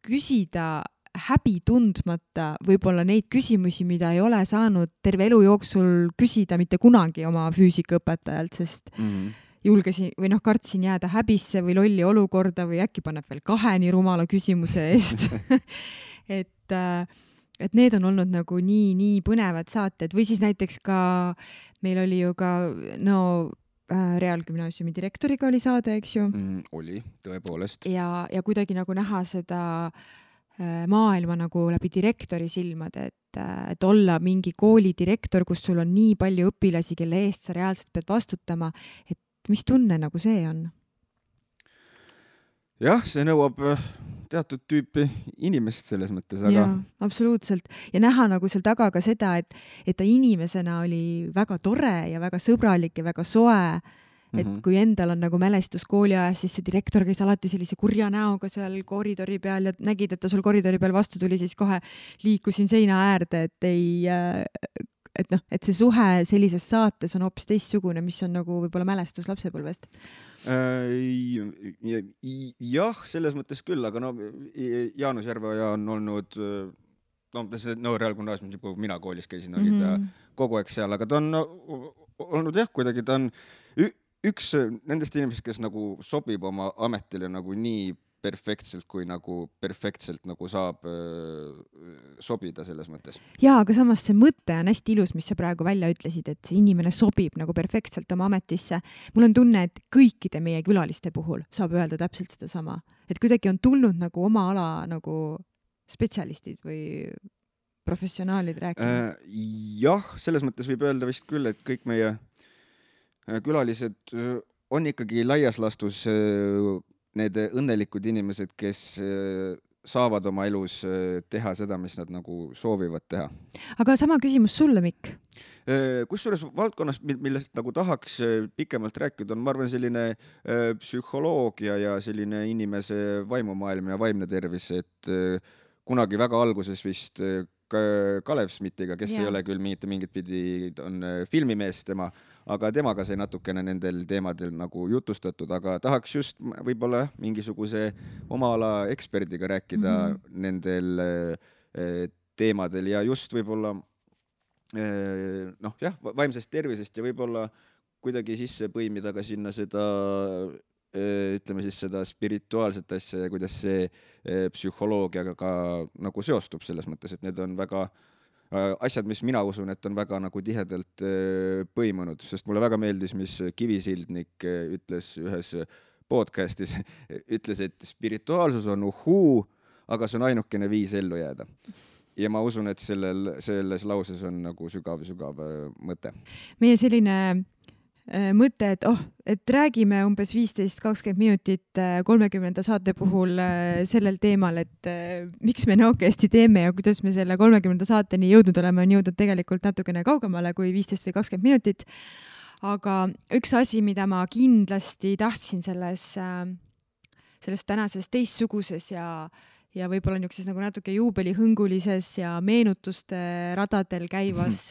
S1: küsida häbi tundmata võib-olla neid küsimusi, mida ei ole saanud terve elu jooksul küsida mitte kunagi oma füüsikaõpetajalt, sest julgesin või kartsin jääda häbisse või lolli olukorda või äkki paneb veel 2 nii rumala küsimuse eest. et need on olnud nagu nii põnevad saated või siis näiteks ka meil oli ju ka Reaalgümnaasiumi direktoriga oli saade, eks ju?
S2: Oli, tõepoolest.
S1: Ja kuidagi nagu näha seda maailma nagu läbi direktori silmad, et olla mingi kooli direktor, kus sul on nii palju õpilasi, kelle eest sa reaalselt pead vastutama, et mis tunne nagu see on?
S2: Jah, see nõuab teatud tüüpi inimest selles mõttes, aga...
S1: Jaa, absoluutselt. Ja näha nagu seal taga ka seda, et ta inimesena oli väga tore ja väga sõbralik ja väga soe. Et kui endal on nagu mälestus kooliajas, siis see direktor käis alati sellise kurja näoga seal koridori peal ja nägid, et ta sul koridori peal vastu tuli, siis kohe liikusin seina äärde, et see suhe sellises saates on hoopis teistsugune, mis on nagu võib-olla mälestus lapsepõlvest.
S2: Jah, selles mõttes küll, aga Jaanus Järveoja on olnud Reaalgümnaasiumis, kui mina koolis käisin, oli ta kogu aeg seal, aga ta on olnud kuidagi ta on üks nendest inimesest, kes nagu sobib oma ametile nagu nii perfektselt, kui nagu perfektselt nagu saab sobida selles mõttes.
S1: Jaa, aga samas see mõte on hästi ilus, mis sa praegu välja ütlesid, et see inimene sobib nagu perfektselt oma ametisse. Mul on tunne, et kõikide meie külaliste puhul saab öelda täpselt seda sama. Et kuidagi on tulnud nagu oma ala nagu spetsialistid või professionaalid rääkima.
S2: Jah, selles mõttes võib öelda vist küll, et kõik meie külalised on ikkagi laias lastus need õnnelikud inimesed, kes saavad oma elus teha seda, mis nad nagu soovivad teha.
S1: Aga sama küsimus sulle, Mikk?
S2: Kusjuures valdkonnas, millest nagu tahaks pikemalt rääkida, on, ma arvan, selline psühholoogia ja selline inimese vaimumaailm ja vaimne tervis, et kunagi väga alguses vist Kalev Smithiga, kes ei ole küll mingit pidi, on filmimees tema, aga temaga sai natukene nendel teemadel nagu jutustatud, aga tahaks just võib-olla mingisuguse oma ala eksperdiga rääkida nendel teemadel ja just võib-olla vaimsest tervisest ja võib-olla kuidagi sisse põimida ka sinna seda ütleme siis seda spirituaalset asja ja kuidas see psühholoogiaga ka nagu seostub selles mõttes, et need on väga asjad, mis mina usun, et on väga nagu tihedalt põimunud, sest mulle väga meeldis, mis Kivisildnik ütles ühes podcastis, ütles, et spirituaalsus on uhuu, aga see on ainukene viis ellu jääda. Ja ma usun, et selles lauses on nagu sügav mõte.
S1: Meie selline mõte, et räägime umbes 15-20 minutit 30. saate puhul sellel teemal, et miks me Nõokesti teeme ja kuidas me selle 30. saateni jõudnud oleme, on jõudnud tegelikult natukene kaugemale kui 15 või 20 minutit. Aga üks asi, mida ma kindlasti tahtsin selles tänases teistsuguses ja võib-olla niisuguses nagu natuke juubelihõngulises ja meenutuste radadel käivas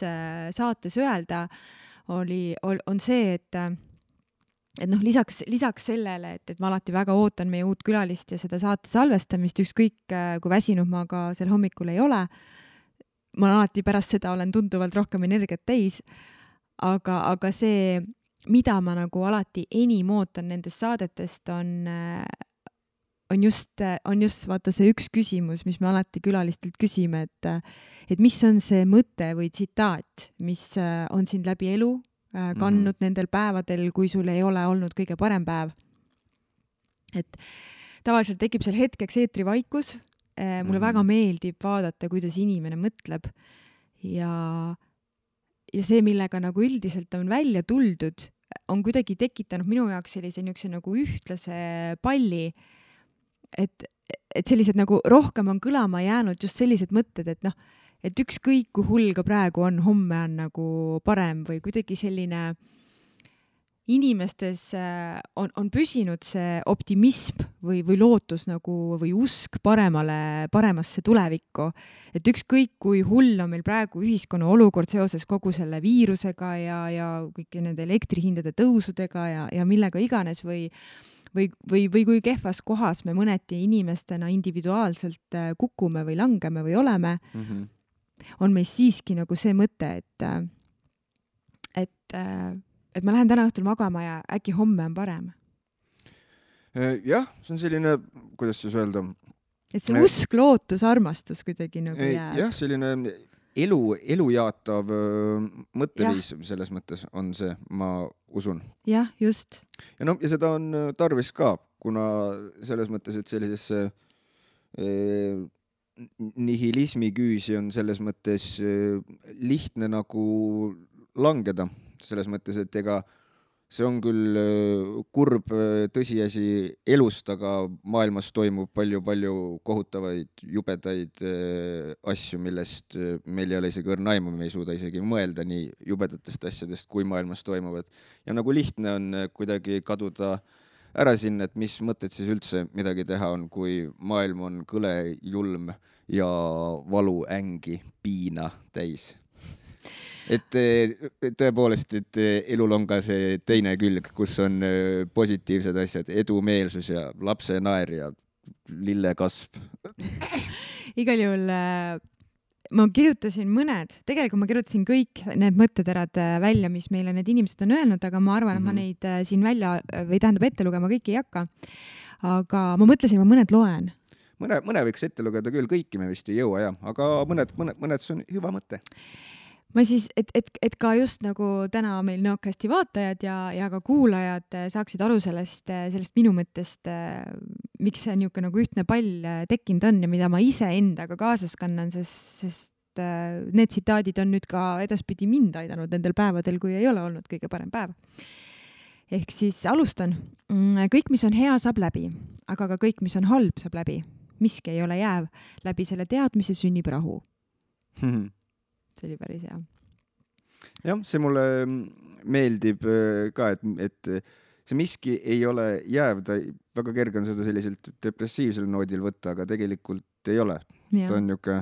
S1: saates öelda, on see, et lisaks sellele, et ma alati väga ootan meie uut külalist ja seda saate salvestamist, ükskõik kui väsinud ma ka sel hommikul ei ole, ma alati pärast seda olen tunduvalt rohkem energiat täis, aga see, mida ma nagu alati enim ootan nendest saadetest, on just vaata see üks küsimus, mis me alati külalistelt küsime, et mis on see mõte või tsitaat, mis on sind läbi elu kandnud nendel päevadel, kui sul ei ole olnud kõige parem päev. Et tavaliselt tekib seal hetkeks eetrivaikus. Mulle väga meeldib vaadata, kuidas inimene mõtleb ja see, millega nagu üldiselt on välja tuldud, on kuidagi tekitanud minu jaoks sellise nagu ühtlase palli, et sellised nagu rohkem on kõlama jäänud just sellised mõtted, et ükskõik kui hull ka praegu on, homme on nagu parem või kuidagi selline inimestes on püsinud see optimism või lootus nagu või usk paremasse tulevikku. Et ükskõik kui hull on meil praegu ühiskonna olukord seoses kogu selle viirusega ja kõik nende elektrihindade tõusudega ja millega iganes või kui kehvas kohas me mõneti inimestena individuaalselt kukume või langeme või oleme, on meil siiski nagu see mõte, et ma lähen täna õhtul magama ja äkki homme on parem.
S2: Jah, see on selline, kuidas siis öelda?
S1: Et see usk, lootus, armastus kuidagi nagu jääb.
S2: Jah, selline elu jaatav mõtteviis selles mõttes on see, ma usun.
S1: Jah, just.
S2: Ja seda on tarvis ka, kuna selles mõttes, et sellisesse nihilismi küüsi on selles mõttes lihtne nagu langeda. Selles mõttes, et ega see on küll kurb tõsiasi elust, aga maailmas toimub palju kohutavaid, jubedaid asju, millest meil ei ole isegi õrna aimu, me ei suuda isegi mõelda nii jubedatest asjadest, kui maailmas toimuvad. Ja nagu lihtne on kuidagi kaduda ära sinna, et mis mõtted siis üldse midagi teha on, kui maailm on kõle, julm ja valu, ängi, piina täis. Et tõepoolest, et elul on ka see teine külg, kus on positiivsed asjad, edumeelsus ja lapse naer ja lillekasv.
S1: Igal juhul ma kirjutasin tegelikult ma kirjutasin kõik need mõtteterad välja, mis meile need inimesed on öelnud, aga ma arvan, et ma neid siin välja või tähendab ette lugema kõiki ei hakka. Aga ma mõtlesin, ma mõned loen.
S2: Mõne võiks ette lugeda küll, kõiki me vist ei jõua, aga mõned see on hüva mõte.
S1: Ma siis, et ka just nagu täna meil Nõokesti vaatajad ja ka kuulajad saaksid aru sellest minu mõttest, miks see niisugune nagu ühtne pall tekkinud on ja mida ma ise endaga kaasas kannan, sest need tsitaadid on nüüd ka edaspidi mind aidanud nendel päevadel, kui ei ole olnud kõige parem päev. Ehk siis alustan. Kõik, mis on hea, saab läbi, aga ka kõik, mis on halb, saab läbi. Miski ei ole jääv. Läbi selle teadmise sünnib rahu. See oli päris hea.
S2: Jah, see mulle meeldib ka, et see miski ei ole jääv, väga kerge on seda selliselt depressiivsel noodil võtta, aga tegelikult ei ole.
S1: Ja.
S2: Ta on niuke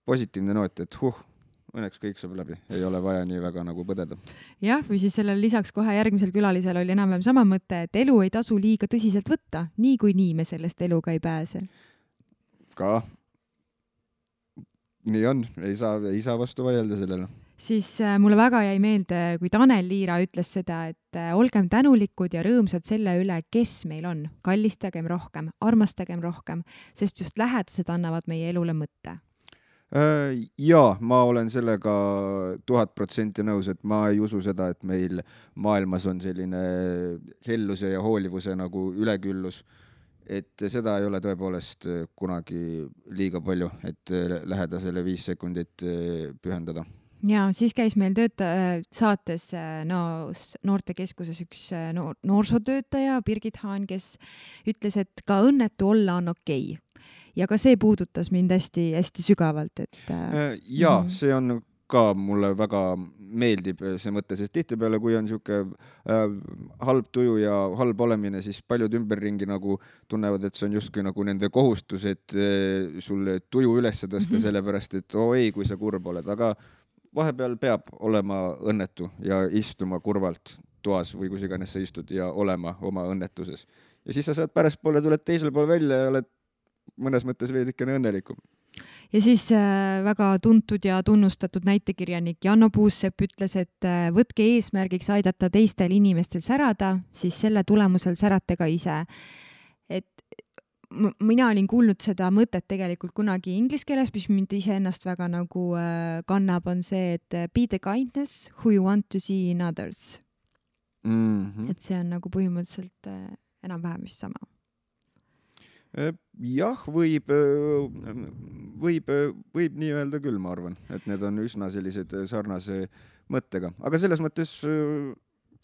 S2: positiivne noot, et õnneks kõik saab läbi, ei ole vaja nii väga nagu põdeda.
S1: Jah, või siis sellel lisaks kohe järgmisel külalisel oli enam-vähem sama mõte, et elu ei tasu liiga tõsiselt võtta, nii kui nii me sellest eluga ei pääse.
S2: Ka nii on, ei saa vastu vaielda sellele.
S1: siis mulle väga jäi meelde, kui Tanel Liira ütles seda, et olgem tänulikud ja rõõmsad selle üle, kes meil on. Kallistagem rohkem, armastagem rohkem, sest just lähedased annavad meie elule mõtte.
S2: Jaa, ma olen sellega 1000% nõus, et ma ei usu seda, et meil maailmas on selline helluse ja hoolivuse nagu üleküllus. Et seda ei ole tõepoolest kunagi liiga palju, et lähedasele 5 sekundit pühendada.
S1: Ja siis käis meil saates noortekeskuses üks noorsootöötaja, Birgit Haan, kes ütles, et ka õnnetu olla on okei. Ja ka see puudutas mind hästi sügavalt.
S2: See on ka mulle väga meeldib see mõte, sest tihtipeale, kui on niisugune halb tuju ja halb olemine, siis paljud ümberringi nagu tunnevad, et see on justkui nagu nende kohustus, et sul tuju üles tõsta, sellepärast, et ei, kui sa kurb oled, aga vahepeal peab olema õnnetu ja istuma kurvalt toas või kus iganes sa istud ja olema oma õnnetuses. Ja siis sa saad pärastpoole, tuled teisel pool välja ja oled mõnes mõttes veidikene õnnelikum.
S1: Ja siis väga tuntud ja tunnustatud näitekirjanik Janno Puussepp ütles, et võtke eesmärgiks aidata teistel inimestel särada, siis selle tulemusel särate ka ise. Et mina olin kuulnud seda mõtet tegelikult kunagi inglise keeles, mis mind iseennast väga nagu kannab, on see, et be the kindness who you want to see in others. Et see on nagu põhimõtteliselt enam-vähem vist sama.
S2: Jah, võib nii öelda küll, ma arvan, et need on üsna sellised sarnase mõttega, aga selles mõttes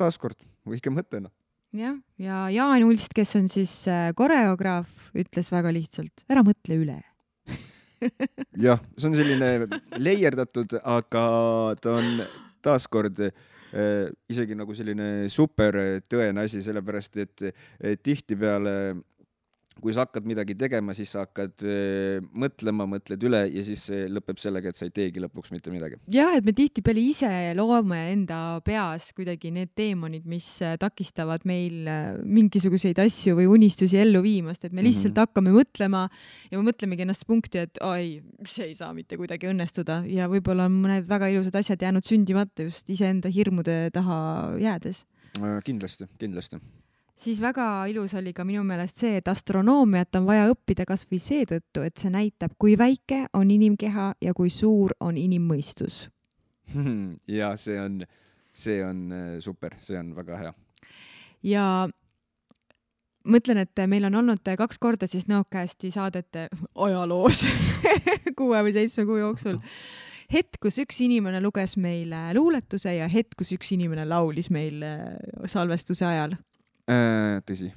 S2: taaskord võike mõttena.
S1: Ja Jaan Ulst, kes on siis koreograaf, ütles väga lihtsalt, ära mõtle üle.
S2: Jah, see on selline leierdatud, aga ta on taaskord isegi nagu selline super tõene asi, sellepärast, et tihtipeale kui sa hakkad midagi tegema, siis sa hakkad mõtled üle ja siis see lõpeb sellega, et sa ei teegi lõpuks mitte midagi.
S1: Jah, et me tihtipeale ise loome enda peas kuidagi need teemonid, mis takistavad meil mingisuguseid asju või unistusi ellu viimast, et me lihtsalt hakkame mõtlema ja me mõtlemegi ennast punkti, et see ei saa mitte kuidagi õnnestuda ja võib-olla on mõned väga ilusad asjad jäänud sündimata just iseenda hirmude taha jäädes.
S2: Kindlasti.
S1: Siis väga ilus oli ka minu meelest see, et astronoomiat on vaja õppida kas või seetõttu, et see näitab, kui väike on inimkeha ja kui suur on inimmõistus.
S2: Ja see on super, see on väga hea.
S1: Ja mõtlen, et meil on olnud 2 korda siis Nõukäästi saadete ajaloos 6 või 7 kuu jooksul. Hetk, kus üks inimene luges meile luuletuse ja hetk, kus üks inimene laulis meil salvestuse ajal.
S2: Tõsi.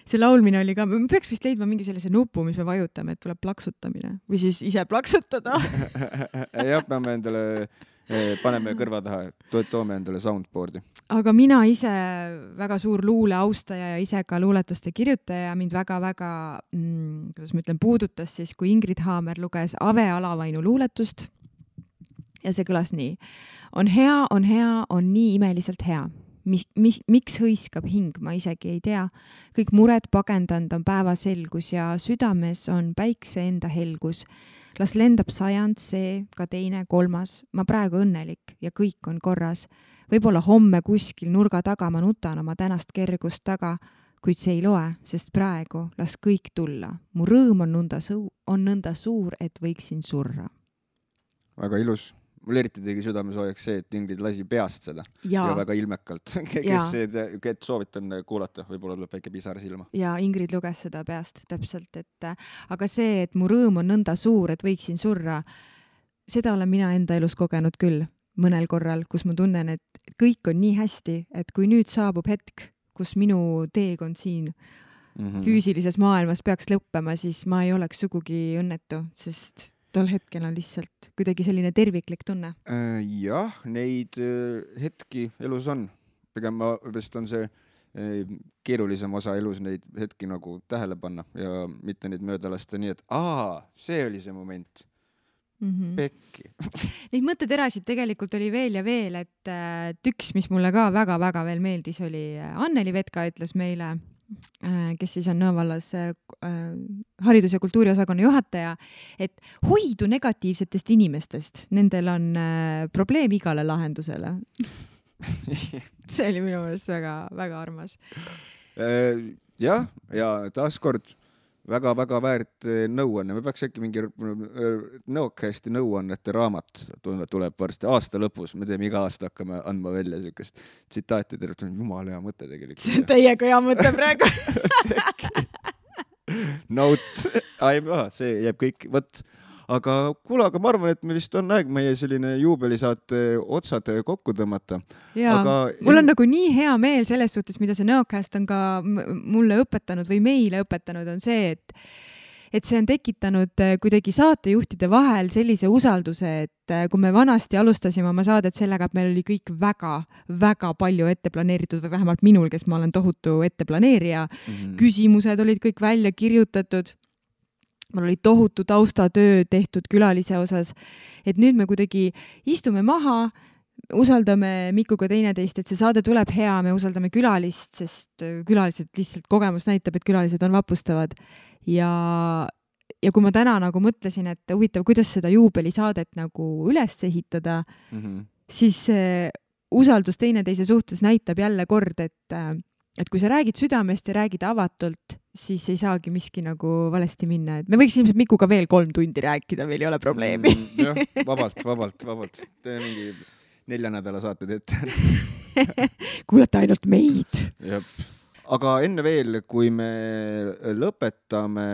S1: See laulmine oli ka, me peaks vist leidma mingi sellise nupu, mis me vajutame, et tuleb plaksutamine või siis ise plaksutada.
S2: Jah, peame endale, paneme kõrva taha, toome endale soundboardi.
S1: Aga mina ise väga suur luule austaja ja ise ka luuletuste kirjutaja mind väga-väga, kuidas ma ütlen, puudutas siis, kui Ingrid Haamer luges Ave Alavainu luuletust ja see kõlas nii. On hea, on nii imeliselt hea. Miks hõiskab hing, ma isegi ei tea. Kõik mured pagendanud on päevaselgus ja südames on päikse enda helgus. Las lendab 100, see, ka teine, 3. Ma praegu õnnelik ja kõik on korras. Võib-olla homme kuskil nurga taga ma nutan oma tänast kergust taga, kuid see ei loe, sest praegu las kõik tulla. Mu rõõm on nõnda suur, et võiksin surra.
S2: Väga ilus. Mul eriti tegi südamesoojaks see, et Ingrid lasi peast seda ja väga ilmekalt. Kes soovitan kuulata, võib-olla tuleb väike pisar silma.
S1: Ja Ingrid luges seda peast täpselt, aga see, et mu rõõm on nõnda suur, et võiksin surra, seda olen mina enda elus kogenud küll mõnel korral, kus ma tunnen, et kõik on nii hästi, et kui nüüd saabub hetk, kus minu teekond siin füüsilises maailmas peaks lõppema, siis ma ei oleks sugugi õnnetu, sest tol hetkel on lihtsalt kuidagi selline terviklik tunne.
S2: Jah, neid hetki elus on. Pigem vist on see keerulisem osa elus neid hetki nagu tähele panna ja mitte neid mööda lasta nii, et see oli see moment. Pekki.
S1: Neid mõtteterasid tegelikult oli veel ja veel, et üks, mis mulle ka väga-väga veel meeldis, oli Anneli Vetka ütles meile kes siis on Nõo vallas haridus- ja kultuuriosakonna juhataja, et hoidu negatiivsetest inimestest, nendel on probleem igale lahendusele. See oli minu meelest väga armas.
S2: Jah, ja taaskord väga väärt nõuanne. Me peaks äkki mingi Nõokasti nõuannete raamat tuleb varsti aasta lõpus. Me teeme iga aasta hakkame andma välja sükest tsitaati. Jumal hea mõte tegelikult.
S1: See on täiega hea mõte praegu.
S2: Note. See jääb kõik. Võt. Aga kuule, aga ma arvan, et me vist on aeg meie selline juubelisaate otsad kokku tõmmata.
S1: Jaa, mul on nagu nii hea meel selles suhtes, mida see Nõokast on ka mulle õpetanud või meile õpetanud, on see, et see on tekitanud kuidagi saatejuhtide vahel sellise usalduse, et kui me vanasti alustasime oma saadet sellega, et meil oli kõik väga palju ette planeeritud või vähemalt minul, kes ma olen tohutu etteplaneerija, küsimused olid kõik välja kirjutatud. Mul oli tohutu taustatöö tehtud külalise osas, et nüüd me kuidagi istume maha, usaldame Mikuga teineteist, et see saade tuleb hea, me usaldame külalist, sest külalised lihtsalt kogemus näitab, et külalised on vapustavad. Ja kui ma täna nagu mõtlesin, et huvitav, kuidas seda juubelisaadet nagu üles ehitada, siis usaldus teineteise suhtes näitab jälle kord, et kui sa räägid südamest ja räägid avatult, siis ei saagi miski nagu valesti minna. Et me võiks ilmselt Mikuga veel 3 tundi rääkida, meil ei ole probleemi.
S2: Jah, vabalt. Tee mingi 4 nädala saated ette.
S1: Kuulete ainult meid.
S2: Jep. Aga enne veel, kui me lõpetame,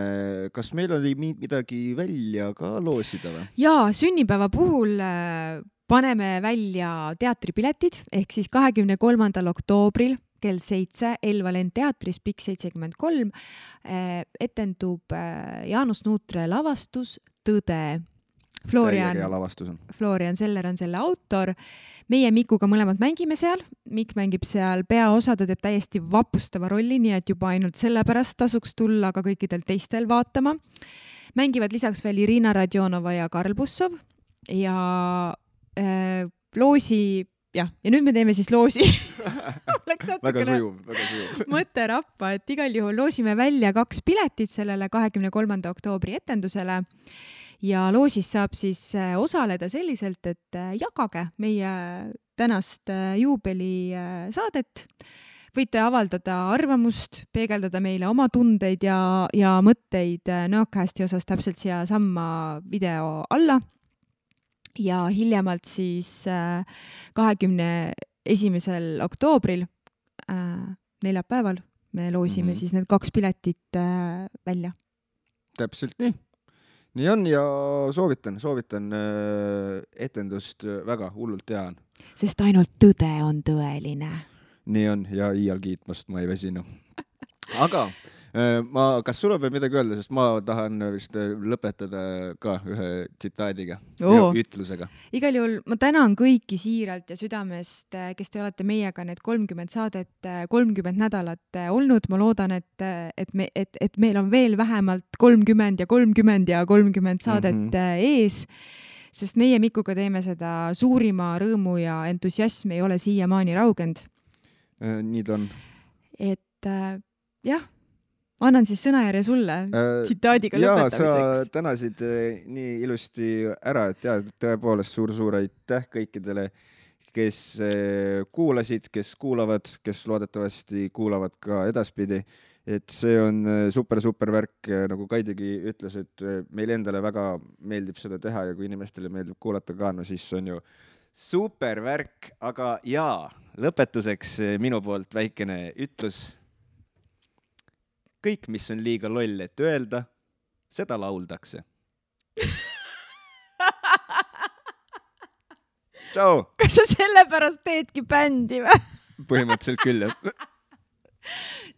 S2: kas meil oli midagi välja ka loosida või?
S1: Jaa, sünnipäeva puhul paneme välja teatripiletid, ehk siis 23. oktoobril kell 7 Elva Lend teatris Pikk 73 etendub Jaanus Nuutre lavastus Tõde. Florian Seller on selle autor. Meie Mikuga mõlemad mängime seal. Mikk mängib seal peaosa, ta teeb täiesti vapustava rolli, nii et juba ainult sellepärast tasuks tulla ka kõikidel teistel vaatama. Mängivad lisaks veel Irina Radionova ja Karl Bussov ja loosi. Ja nüüd me teeme siis loosi.
S2: Väga sujuv.
S1: Mõte rappa, et igal juhul loosime välja 2 piletit sellele 23. oktoobri etendusele ja loosis saab siis osaleda selliselt, et jagage meie tänast juubelisaadet. Võite avaldada arvamust, peegeldada meile oma tundeid ja mõtteid Nõokasti osas täpselt siia samma video alla. Ja hiljemalt siis 21. oktoobril neljapäeval me loosime siis need 2 piletit välja.
S2: Täpselt nii. Nii on ja soovitan etendust väga hullult hea on.
S1: Sest ainult tõde on tõeline.
S2: Nii on ja iial kiitmast ma ei vesinu. Aga kas sul on veel midagi öelda, sest ma tahan vist lõpetada ka ühe tsitaadiga, ütlusega. Igal juhul ma tänan kõiki siiralt ja südamest, kes te olete meiega need 30 saadet, 30 nädalat olnud. Ma loodan, et meil on veel vähemalt 30 ja 30 saadet ees, sest meie Mikuga teeme seda suurima rõõmu ja entusiasm ei ole siiamaani raugend. Nii ta on. Et jah, annan siis sõnajärje sulle tsitaadiga lõpetamiseks. Sa tänasid nii ilusti ära, et tõepoolest suur aitäh kõikidele, kes kuulasid, kes kuulavad, kes loodetavasti kuulavad ka edaspidi. Et see on super värk, nagu Kaidigi ütles, et meil endale väga meeldib seda teha ja kui inimestele meeldib kuulata ka, no siis on ju super värk. Aga lõpetuseks minu poolt väikene ütlus. Kõik, mis on liiga loll, et öelda, seda lauldakse. Tšau! Kas sa sellepärast teedki bändi või? Põhimõtteliselt küll, jah.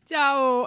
S2: Tšau!